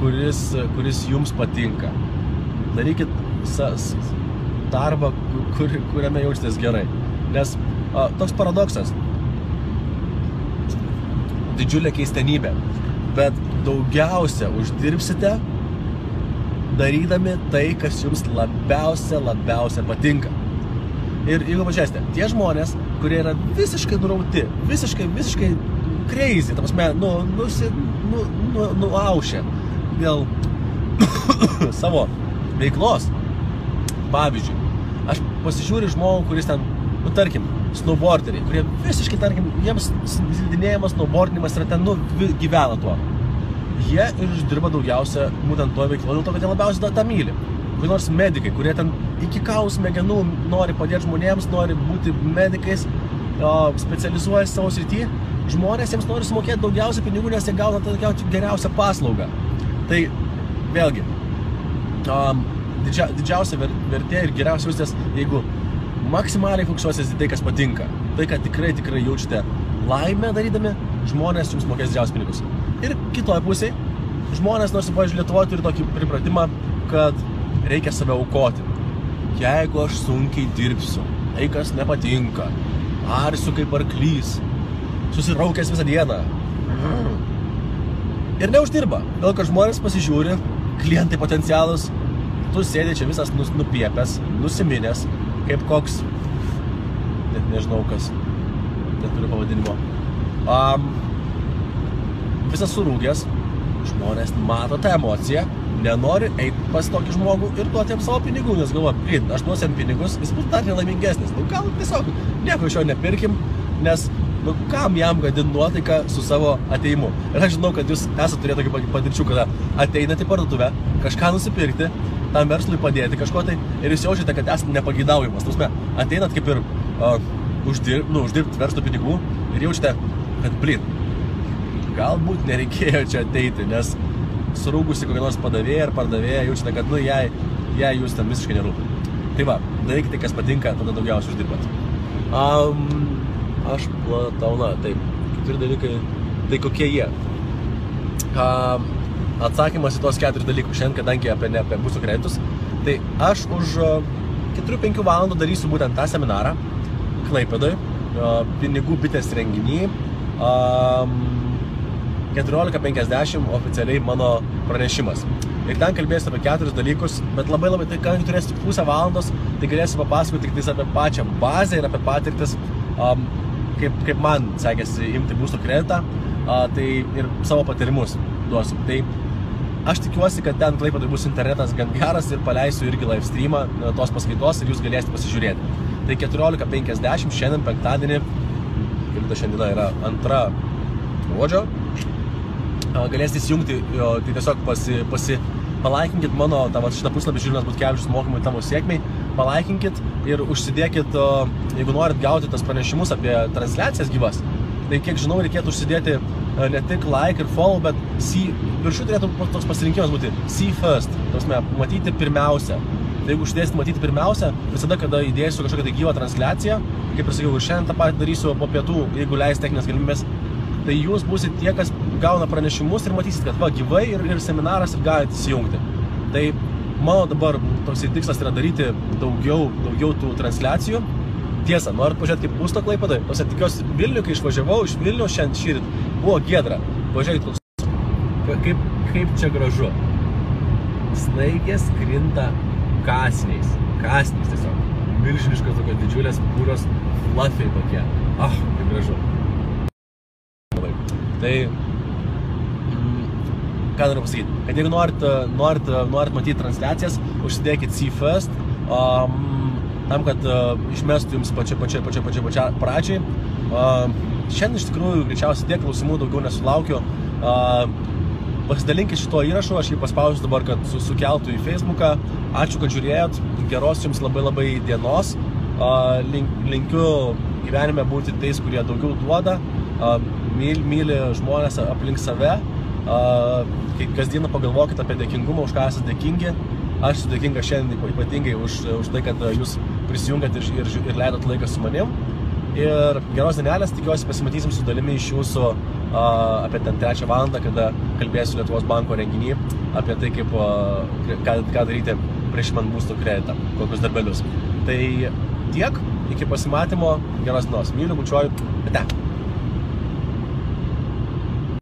kuris jums patinka. Darykit darbą, kuriame jaustės gerai. Nes toks paradoksas, didžiulė keistenybė, bet daugiausia uždirbsite darydami tai, kas jums labiausia patinka. Ir jeigu pažiūrėsite, tie žmonės, kurie yra visiškai nurauti, visiškai crazy, ta prasme, nuaušę dėl savo veiklos. Pavyzdžiui, aš pasižiūriu žmogų, kuris ten, tarkim, snowboarderiai, kurie visiškai, tarkim, jiems slidinėjimas, snowboardinimas yra ten, gyvena tuo. Jie ir uždirba daugiausia būtent to veiklo, dėl to, kad jie labiausiai tą myli. Kokie nors medikai, kurie ten iki kaulų smegenų nori padėti žmonėms, nori būti medikais, specializuojasi savo srity, žmonės jiems nori sumokėti daugiausia pinigų, nes jie gauna tokią geriausią paslaugą. Tai vėlgi, didžiausia vertė ir geriausia jaustės, jeigu maksimaliai fokusuositės į tai, kas patinka. Tai, kad tikrai jaučiate laimę darydami, žmonės jums mokės didžiausius pinigus. Ir kitoje pusėje, žmonės, nors, pavyzdžiui, Lietuvoje turi tokį pripratimą, kad reikia save aukoti. Jeigu aš sunkiai dirbsiu, tai kas nepatinka, arsiu kaip arklys, susiraukęs visą dieną. Ir neuždirba. Dėl kad žmonės pasižiūri, klientai potencialus, tu sėdė čia visas nupiepęs, nusiminęs, kaip koks, net nežinau kas, neturiu pavadinimo. visas surūgęs, žmonės mato tą emociją, nenori eiti pas tokį žmogų ir duoti jam savo pinigų, nes galvoja, aš duosiu jam pinigus, jis bus dar nelaimingesnis. Nu, gal tiesiog nieko iš jo nepirkim, nes nu, kam jam gadinti nuotaiką su savo ateimu. Ir aš žinau, kad jūs esate turėję tokį patirčių, kada ateinate į parduotuvę, kažką nusipirkti, tam verslui padėti kažko tai, ir jūs jaučiate, kad esate nepageidaujamas. Tausme, ateinat kaip ir uždirbti verslo pinigų ir jaučiate, kad galbūt nereikėjo čia ateiti, nes surūgusi kokią nors padavėją ar pardavėją jaučiate, kad jai jūs tam visiškai nerūpi. Tai va, darykite, kas patinka, tada daugiausiai uždirbat. Aš platauna, taip, keturi dalykai, tai kokie jie? Atsakymas į tos 4 dalykus šiandien, kadangi apie būsto kreditus, tai aš už 4-5 valandų darysiu būtent tą seminarą Klaipėdoj, pinigų bitės renginį, 14:50 oficialiai mano pranešimas. Ir ten kalbėsiu apie 4 dalykus, bet labai, tai kadangi turėsiu tik pusę valandos, tai galėsiu papasakoti tik apie pačią bazę ir apie patirtis, kaip man sekėsi imti būsto kreditą, tai ir savo patyrimus duosiu. Tai aš tikiuosi, kad ten Klaipėdoj bus internetas gan geras ir paleisiu irgi live streamą tos paskaitos ir jūs galėsite pasižiūrėti. Tai 14:50 šiandien penktadienį, kaip šiandiena yra 2 gruodžio, galėsite įsijungti, tai tiesiog palaikinkit mano šitą puslapį Žilvinas Butkevičius mokymai tavo sėkmei, palaikinkit ir užsidėkit, jeigu norit gauti tas pranešimus apie transliacijas gyvas, tai kiek žinau, reikėtų užsidėti ne tik like ir follow, bet viršų turėtų toks pasirinkimas būti see first, matyti pirmiausia. Tai jeigu uždėsit matyti pirmiausia, visada, kada įdėsiu kažkokią tai gyvą transliaciją, kaip ir sakiau, ir šiandien tą patį darysiu po pietų, jeigu leis techninės galimybės, tai jūs būsit tie, kas gauna pranešimus ir matysit, kad va, gyvai ir seminaras ir galite įsijungti. Tai mano dabar toks tikslas yra daryti daugiau tų transliacijų. Tiesa, norit pažiūrėti kaip būsto Klaipėdoj? Tikiuosi Vilnių, kai išvažiavau iš Vilnių šiandien šįryt, buvo giedra. Pažiūrėkit, kaip čia gražu. Snaigės krinta kasniais tiesiog. Milžiniškos tokios didžiulės, pūros, fluffy tokie. Kaip gražu. Tai, ką noriu pasakyti, kad jeigu norit matyti transliacijas, užsidėkit see first, tam, kad išmestų jums pačią pradžiai. Šiandien iš tikrųjų greičiausiai tiek klausimų daugiau nesulaukiu. Pasidalinkit šito įrašu, aš jį paspausiu dabar, kad sukeltų į Facebooką. Ačiū, kad žiūrėjot, geros jums labai dienos. Linkiu gyvenime būti tais, kurie daugiau duoda, myli žmonės aplink save. Kasdieną pagalvokit apie dėkingumą, už ką esate dėkingi. Aš esu dėkinga šiandien ypatingai už tai, kad jūs prisijungat ir leidot laiką su manim. Ir geros dienelės, tikiuosi pasimatysim su dalimi iš jūsų apie ten 3 valandą, kada kalbėsiu Lietuvos banko renginį apie tai, ką daryti prieš man būsto kreditą, kokius darbelius. Tai tiek, iki pasimatymo, geros dienos. Myliu, bučiuoju, ate.